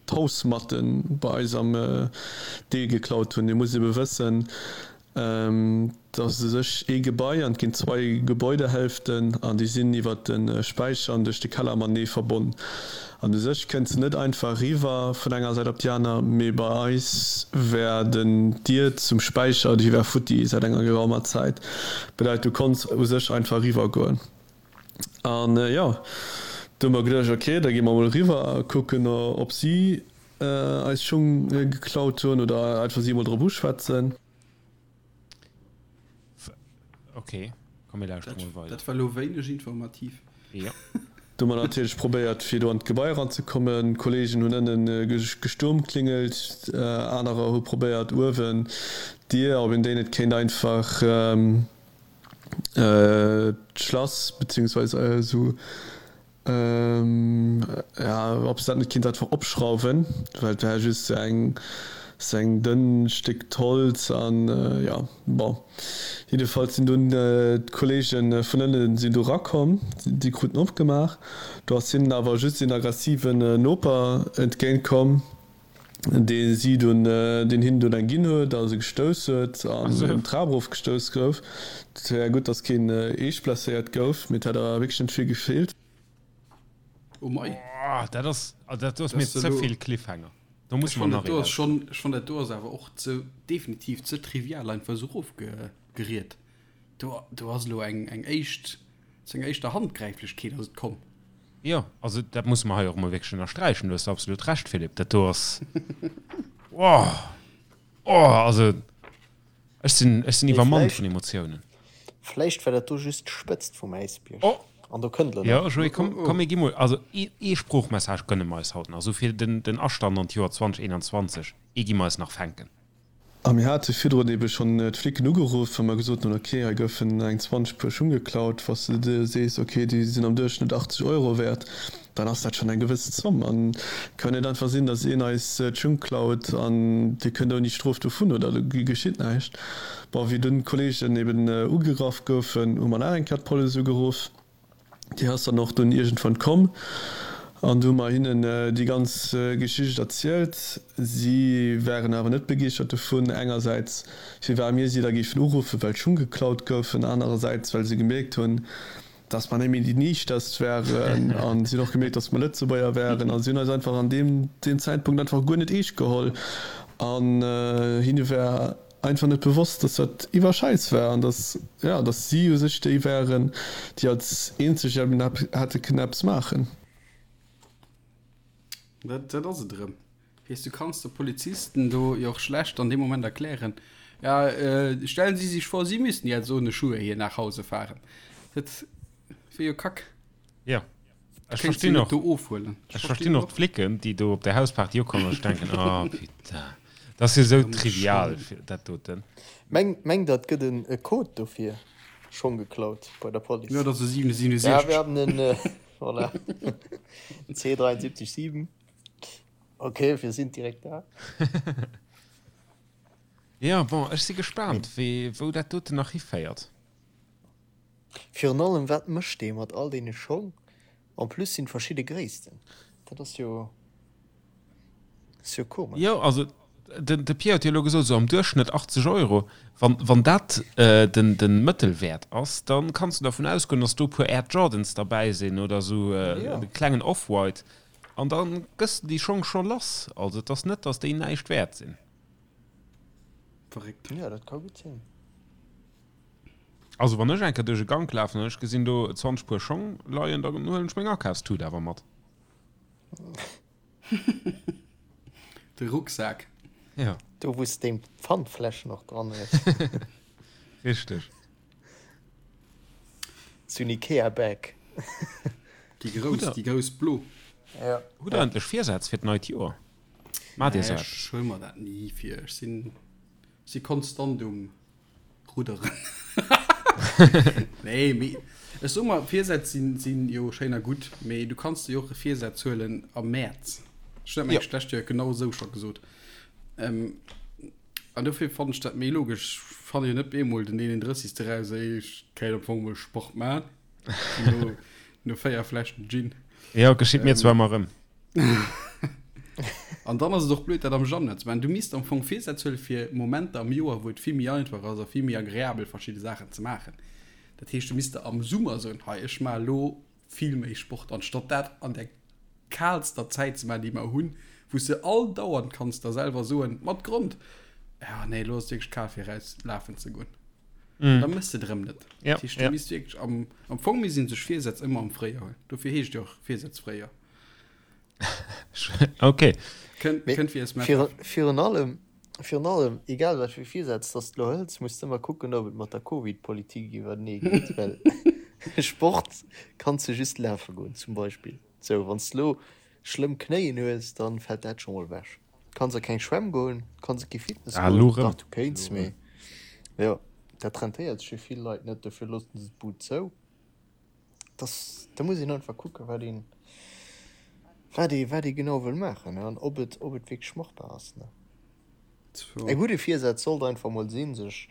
d'Hausmatte bei eis am Deel geklaut hunn. Dir musst ebe wëssen, et ass u sech ee Gebai an et ginn zwei Gebäudehälften an déi sinn iwwer de Späicher an duerch de Keller matenee verbonn. An u sech kënns de net einfach eriwwer vun enger Säit op déi aner, mee bei eis war den d'Dier zum Späicher, déi war futti säit enger geraumer Zäit. Bedeit du konns u sech einfach eriwwer goen. An jo, du hu mer geduecht, ok, da gi mer mol eriwwer a kucken ob si eis Schung geklaut hunn oder einfach si emol drop uschwätzen. Ok, komm mir lauschteren mol weider. Dat war lo wéineg informativ. Jo. Do hu mer natierlech probéiert fir do an d'Gebai eranzekommen. Kollegen hunn ënnen gesturmklingelt, anerer hu probéiert uewen d'Dier, ob een déi net kéint einfach d'Schlass beziehungsweise esou Jo, ob se dat net kinnt einfach opschrauwen, well et war just sou eng sou eng dënn Stéck d'Holz an jo, bon. Jiddefalls sinn dunn d'Kollegen vun ënnen sinn do rakomm, déi kruten opgemaach. Do ass hinnen awer just een aggressiven Noper entgéint komm, dee si dunn, deen hinnen dunn eng ginn huet a se gestouss huet an d'Trap erof gestouss gouf. Et war gutt, datt keen eescht blesséiert gouf, mee et hätt awer wierklech net vill gefeelt. Oh mei. Oh, dat ass, also dat do ass mir ze vill Cliffhanger. Do muss mer nach ee lauschteren. Ech fannen dat do ass awer och ze, definitiv ze trivial einfach esou erofgeriet. Do, do ass elo eng, eng éischt, zu enger éischter Handgräiflechkeet ass et komm. Jo, also dat musse mer hei och emol wierklech ënnersträichen. Du hues absolut Recht, Philippe. Dat do ass, oh, oh, also ech sinn, ech sinn iwwermannt vun Emotiounen. Vläicht war dat do just d'Spëtzt vum Äisbierg. Oh! An do kënnt elo nach. Jo, Joé, komm, komm, mir gi mol, also ee, ee Sproochmessage gënne mer eis haut nach, esou fir den, den Astand an d'Joer 2021, ee gi mer eis nach fänken. A mir hate virdrun ebe schonn d'Flicken ugeruff, well mer gesot hunn, ok, hei goufen eng 20 Puer Schung geklaut. Wa s de der sees, ok, déi sinn am Duerchschnëtt 80 Euro wäert, dann ass dat schonn eng gewëss Zomm. An et kann net einfach sinn, datt een eis d'Schung klaut an dir kënnt ouni Strof dovun oder do geschitt näischt. Bon, wéi dunn d'Kolleegen eben ugegraff goufen, hu mer nach eng Kéier d'Police ugeruff. Déi ass dann och dunn iergendwann komm an du hu mer hinnen déi ganz Geschicht erzielt. Si waren awer net begeeschtert dovun, engersäits firwat mir si da géifen uruffen, well d'Schung geklaut goufen, anerersäits well se gemierkt hunn, dass mer net méi déi Niichterst waren a si hunn och gemierkt, dass mer Lëtzebuerger waren a si hunn eis einfach an deem Zäitpunkt einfach guer net eescht geholl an hinne war einfach net bewosst, dass dat iwwer Schäiss war an dass, ja, dass si u sech déi waren, déi als eenzeg eben hätte kënnen eppes maachen. Dat, dat ass et erëm. Weess, du kanns de Polizisten do jo och schlecht an deem Moment erklären, ja, stellen Sie sich vor, Sie müssten jetzt ohne Schuhe hier nach Hause fahren. Dat wier jo Kack. Jo. Ech verstinn och, ech verstinn och d'Flicken, déi do op der Hausparty ukommen a sech denken, oh putain, dat ass jo esou trivial dat doten. Mengt der et gëtt e Code dofir? Schong geklaut bei der Police. Jo, dat ass e 767. Ja, wir haben en, voilà, C 73 7. Ok, wir sind direkt da. Jo, bon, ech si gespaant, wéi, wou dat doten nach hiféiert. Virun allem wat mécht dee mat all deene Schong? En plus sinn verschidde Gréissten, dat ass jo ass jo komesch. Jo, also den de Pierre huet jo elo gesot, esou am Duerchschnëtt 80 Euro. Wann wann dat den den Mëttelwäert ass, dann kanns du dervun ausgoen, dass do e puer Air Jordans derbäi sinn oder esou e klengen Off-White an da gëss de déi Schong scho lass. Also et ass net, dass déi näischt wäert sinn. Verréckt. Jo, dat ka gutt sinn. Also wann ech eng Kéier duerch e Gank lafen an ech gesinn do 20 Puer Schong leien, da huelen ech meng Akafstut awer mat. De Rucksak. Ja. Do wou s deng Pfandfläschen och dran hues. Richteg. Sou en Ikea Bag. Déi grouss, déi grouss blo. Ja. Hutt der endlech Virsätz fir d'neit Joer? Maacht Dir sou eppes? Ech huele mer dat ni vir. Ech sinn, si konstant um. Rudderen. Nee, mee ech soe mer, Virsätz sinn, sinn jo schéin a gutt, mee du kanns der jo och e Virsaz huelen am Mäerz. Ech hunn dat mengen ech d'lescht Joer genau esou scho gesot. Ähm, an dofir fannen ech dat méi logesch. Ech fanne jo net bemol den 31. eraus, ey, ech kéint am Fong mol Sport maachen. No, no 4 Fläschen Gin. Jo, geschitt mir zwar ëmmer erëm. An dann ass et och blöd, dat am Januar ze maachen. Du misst am Fong Virsätz huelen fir Momenter am Joer, wou et vill méi einfach ass a vill méi agreabel verschidde Saachen ze maachen. Dat heescht, du misst der am Summer soen, hei ech maache elo vill méi Sport, anstatt dat an der kaalster Zäit ze maachen, déi mer hunn, wou s de all dauernd kanns der selwer soen, mat Grond, ja nee, elo ass et wierklech kal fir eraus lafen ze goen. Mm. Da mëss de et erëm net. Ja, Dat heescht, du ja. misst wierklech am, am Fong misst een sech Virsätz ëmmer am Fréijoer huelen. Dofir heescht et jo och Virsätz Fréijoer. Okay. Kënnt, Mee kënnt fir es virun, virun allem. Virun allem, egal wat fir Virsätz dass de lo hëls, muss de ëmmer kucken, ob et mat der Covid-Politik iwwertenee geet, well Sport kanns de just lafe goen zum Beispill. Sou, wann s de lo schlëmm Knéien hues, da fält dat scho mol ewech. Kanns a keng Schwämm goen, kanns a kee Fitness Ah, lo goen, rëm. dach du kéints, mee jo, dat rentéiert sech fir vill Leit net, dofir loossen se d'Bud zou. Dass, da muss een einfach kucken, wat een, wat ee, wat ee genau wëll maachen an ob et, ob et wierklech machbar ass, ne. E gudde Virsaz sollt einfach mol sinn, sech,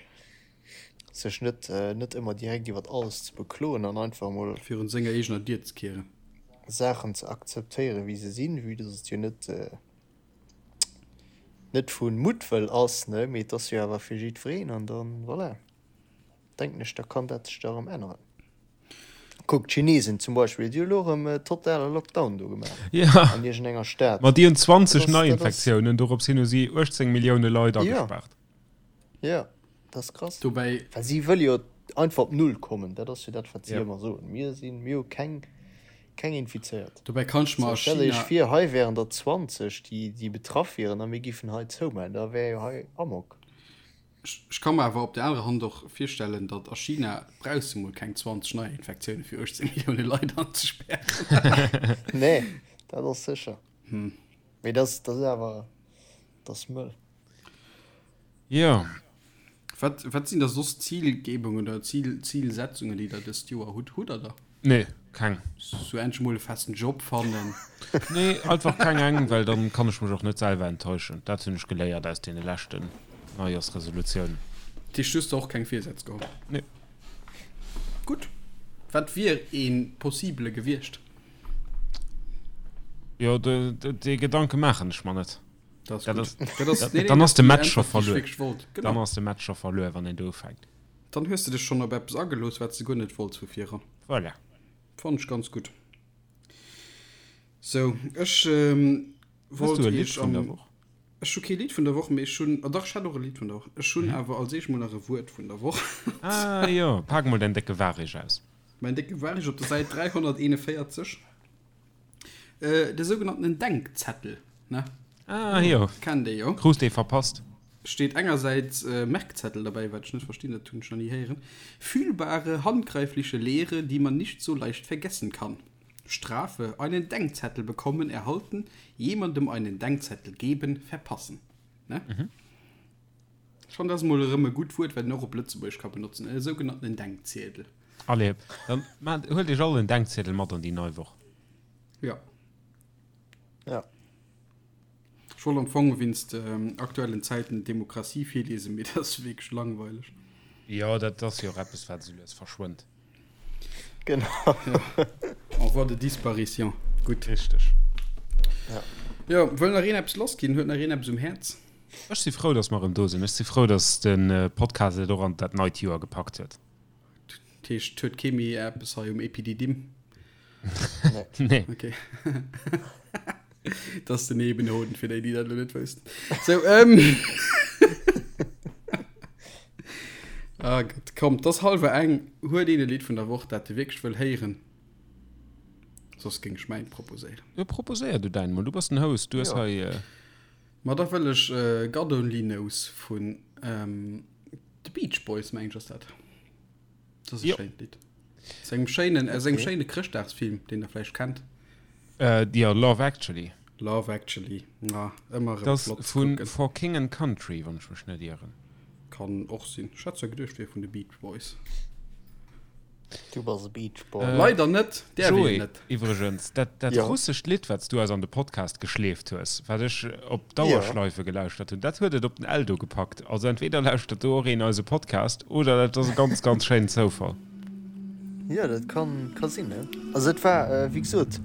sech net, net ëmmer direkt iwwert alles ze bekloen an einfach mol. Virun senger eegener Dier ze kieren. Saachen ze akzeptéieren, wéi se sinn, vue dass et jo net, net vu Muttwëll ass, ne, mee et ass jo awer fir jiddwereen an dann, voilà. Denken ech, da kann dat sech da erëm änneren. Kuck, d'Chinesen zum Beispill, déi hu lo erëm totale Lockdown do gemaach Ja. an iergendenger Stad. Ma déi hunn 20 Dat ass, dat ass. Neiinfektiounen, dorops hin hu si 18 Millioune Leit Jo, agespaart. jo, dat ass krass. Dobäi. Well si wëlle jo einfach op Null kommen, dat ass jo dat, wat si Ja. ëmmer soen, Mir sinn, mir hu keng, keng Infizéiert. Dobäi kann ech mer So, a stellt Iech China. vir, hei wären der 20, déi, déi betraff wieren a mir giffen hei zoumaachen, da wär jo hei Amok. Ech ka mer awer op der anerer Hand och virstellen, datt a China brauchs de mol keng 20 Neiinfektioune fir 18 Millioune Leit anzespären. Nee, dat ass sécher. Mee dat ass awer, dat ass mëll. Jo. Wat, wat sinn da soss Zilgebungen oder Zil, Zilsetzungen, déi der dëst Joer hutt? Hutt der der? Nee, keng. Sou endlech mol e festen Job fannen. Nee, einfach keng eng, well dann kann ech mech och net selwer enttäuschen. Dat hunn ech geléiert aus deene leschten Neijorsresolutiounen. Dat heescht, du hues der och keng Virsätz geholl? Nee. Gutt. Wat wier ee possibele gewiescht? Jo, dee Gedanke maachen ech mer net. Dat ass Dat gutt. ass, Dat ass, nee, nee, dann ass de déi Match scho Äntwert, déi ech verluer. wierklech wollt. Dann Genau. ass de Match scho verluer, wann een do ufänkt. Dann hues de dech schonn op eppes agelooss, wat s de guer net wollts vu viran. Voilà. Fannen ech ganz gutt. Sou, ech Hues wollt du e Lidd iech vun der am. Woch? Ech hu kee Lidd vun der Woch, mee ech hunn, oh dach, ech hätt och e Lidd vun der Woch. Ech hunn awer als éischt mol nach e Wuert vun der Woch. Ah jo, pak mol däin décke Warich aus. Mäin décke Warich op der Säit 341. De sougenannten Denkzettel, ne? Ah jo. Kennt ee jo. Krus dee verpasst. Steet engersäits Merkzettel derbäi, wat ech net verstinn, dat hunn ech nach ni héieren. Fühlbare, handgreifliche Lehre, die man nicht so leicht vergessen kann. Strafe, einen Denkzettel bekommen, erhalten, jemandem einen Denkzettel geben, verpassen. Ne? Ech fannen, dat ass mol erëm e gutt Wuert, wat een och op Lëtzebuergesch ka benotzen, e sougenannten Denkziedel. Allez, dann maacht, huelt iech all en Denkziedel mat an déi nei Woch. Ja. Ja. Ech wollt am Fong wéinst aktuellen Zäiten Demokratie virliesen, mee dat ass wierklech langweileg. Jo, dat ass jo och eppes, wat esou lues verschwënnt. Genau. Ja. En voie de disparition. Gutt. Richteg. Ja. Jo, wëll nach een eppes lassginn? Huet nach een eppes um Häerz? Ech si frou, dass mer erëm do sinn. Ech si frou, dass de Podcast et och an dat neit Joer gepackt huet. Dat heescht, huet kee méi eppes hei um Epididim? Nee. Okay. Dat ass den Nebenhoden, fir déi, déi dat elo net wëssten. Sou, ähm. Ah Gott, komm, 't ass hallwer eng. Huet een e Lidd vun der Woch, dat e wierklech wëll héieren? Soss géing ech mäint proposéieren. Jo, proposéier du däin mol. Du bass den Host, du hues Jo. hei. Ma da wëll ech God Only Knows vun The Beach Boys, meng ech ass dat. Dat ass e Jo. schéint Lidd. Aus engem schéinen, aus engem Okay. schéine Chrëschtdagsfilm, deen der vläicht kennt. Äh, jo, Love Actually. Love Actually, ah, ëmmer erëm Dat ass flott ze vu kucken. For King and Country, wann ech mech net ieren. Kann och sinn. Ech hat zwar geduecht, wier vun de Beach Boys. Du bass e Beach Boy. Äh, Leider net, däerf een Joé, net. iwwregens, dat, dat Ja. russescht Lidd, wat s du eis an de Podcast geschleeft hues, wat ech op Ja. Dauerschleife gelauschtert hunn, dat huet et op den Eldo gepackt. Also entweder lauschtert do och een eise Podcast oder dat ass e ganz, ganz schéinen Zoufall. Jo, dat kann, ka sinn, ne? Also et war, wéi gesot,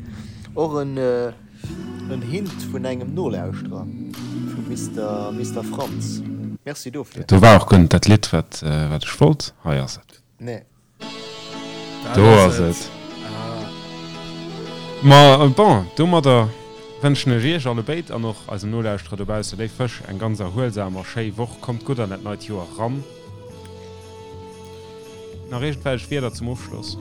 och en, en Hint vun engem Nolauschterer, vum Mister, Mister Franz. Merci dofir. Do war och guer net dat Lidd, wat, wat ech wollt. Hei ass et. Nee. Do ass et. Ma bon, domadder wënschen ech iech allebéid an och eisen Nolauschterer dobausse, léif Fësch, eng ganz erhuelsam a schéi Woch. Kommt gutt an dat neit Joer ran. Nach iergendwelch Wierder zum Ofschloss?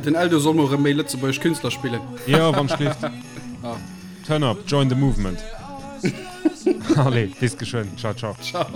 Den Eldo soll mol erëm méi lëtzebuergesch Künstler spillen. Jo, wann schlift. Turn up, join the movement. Allez, bis geschwënn. Ciao, ciao. Ciao.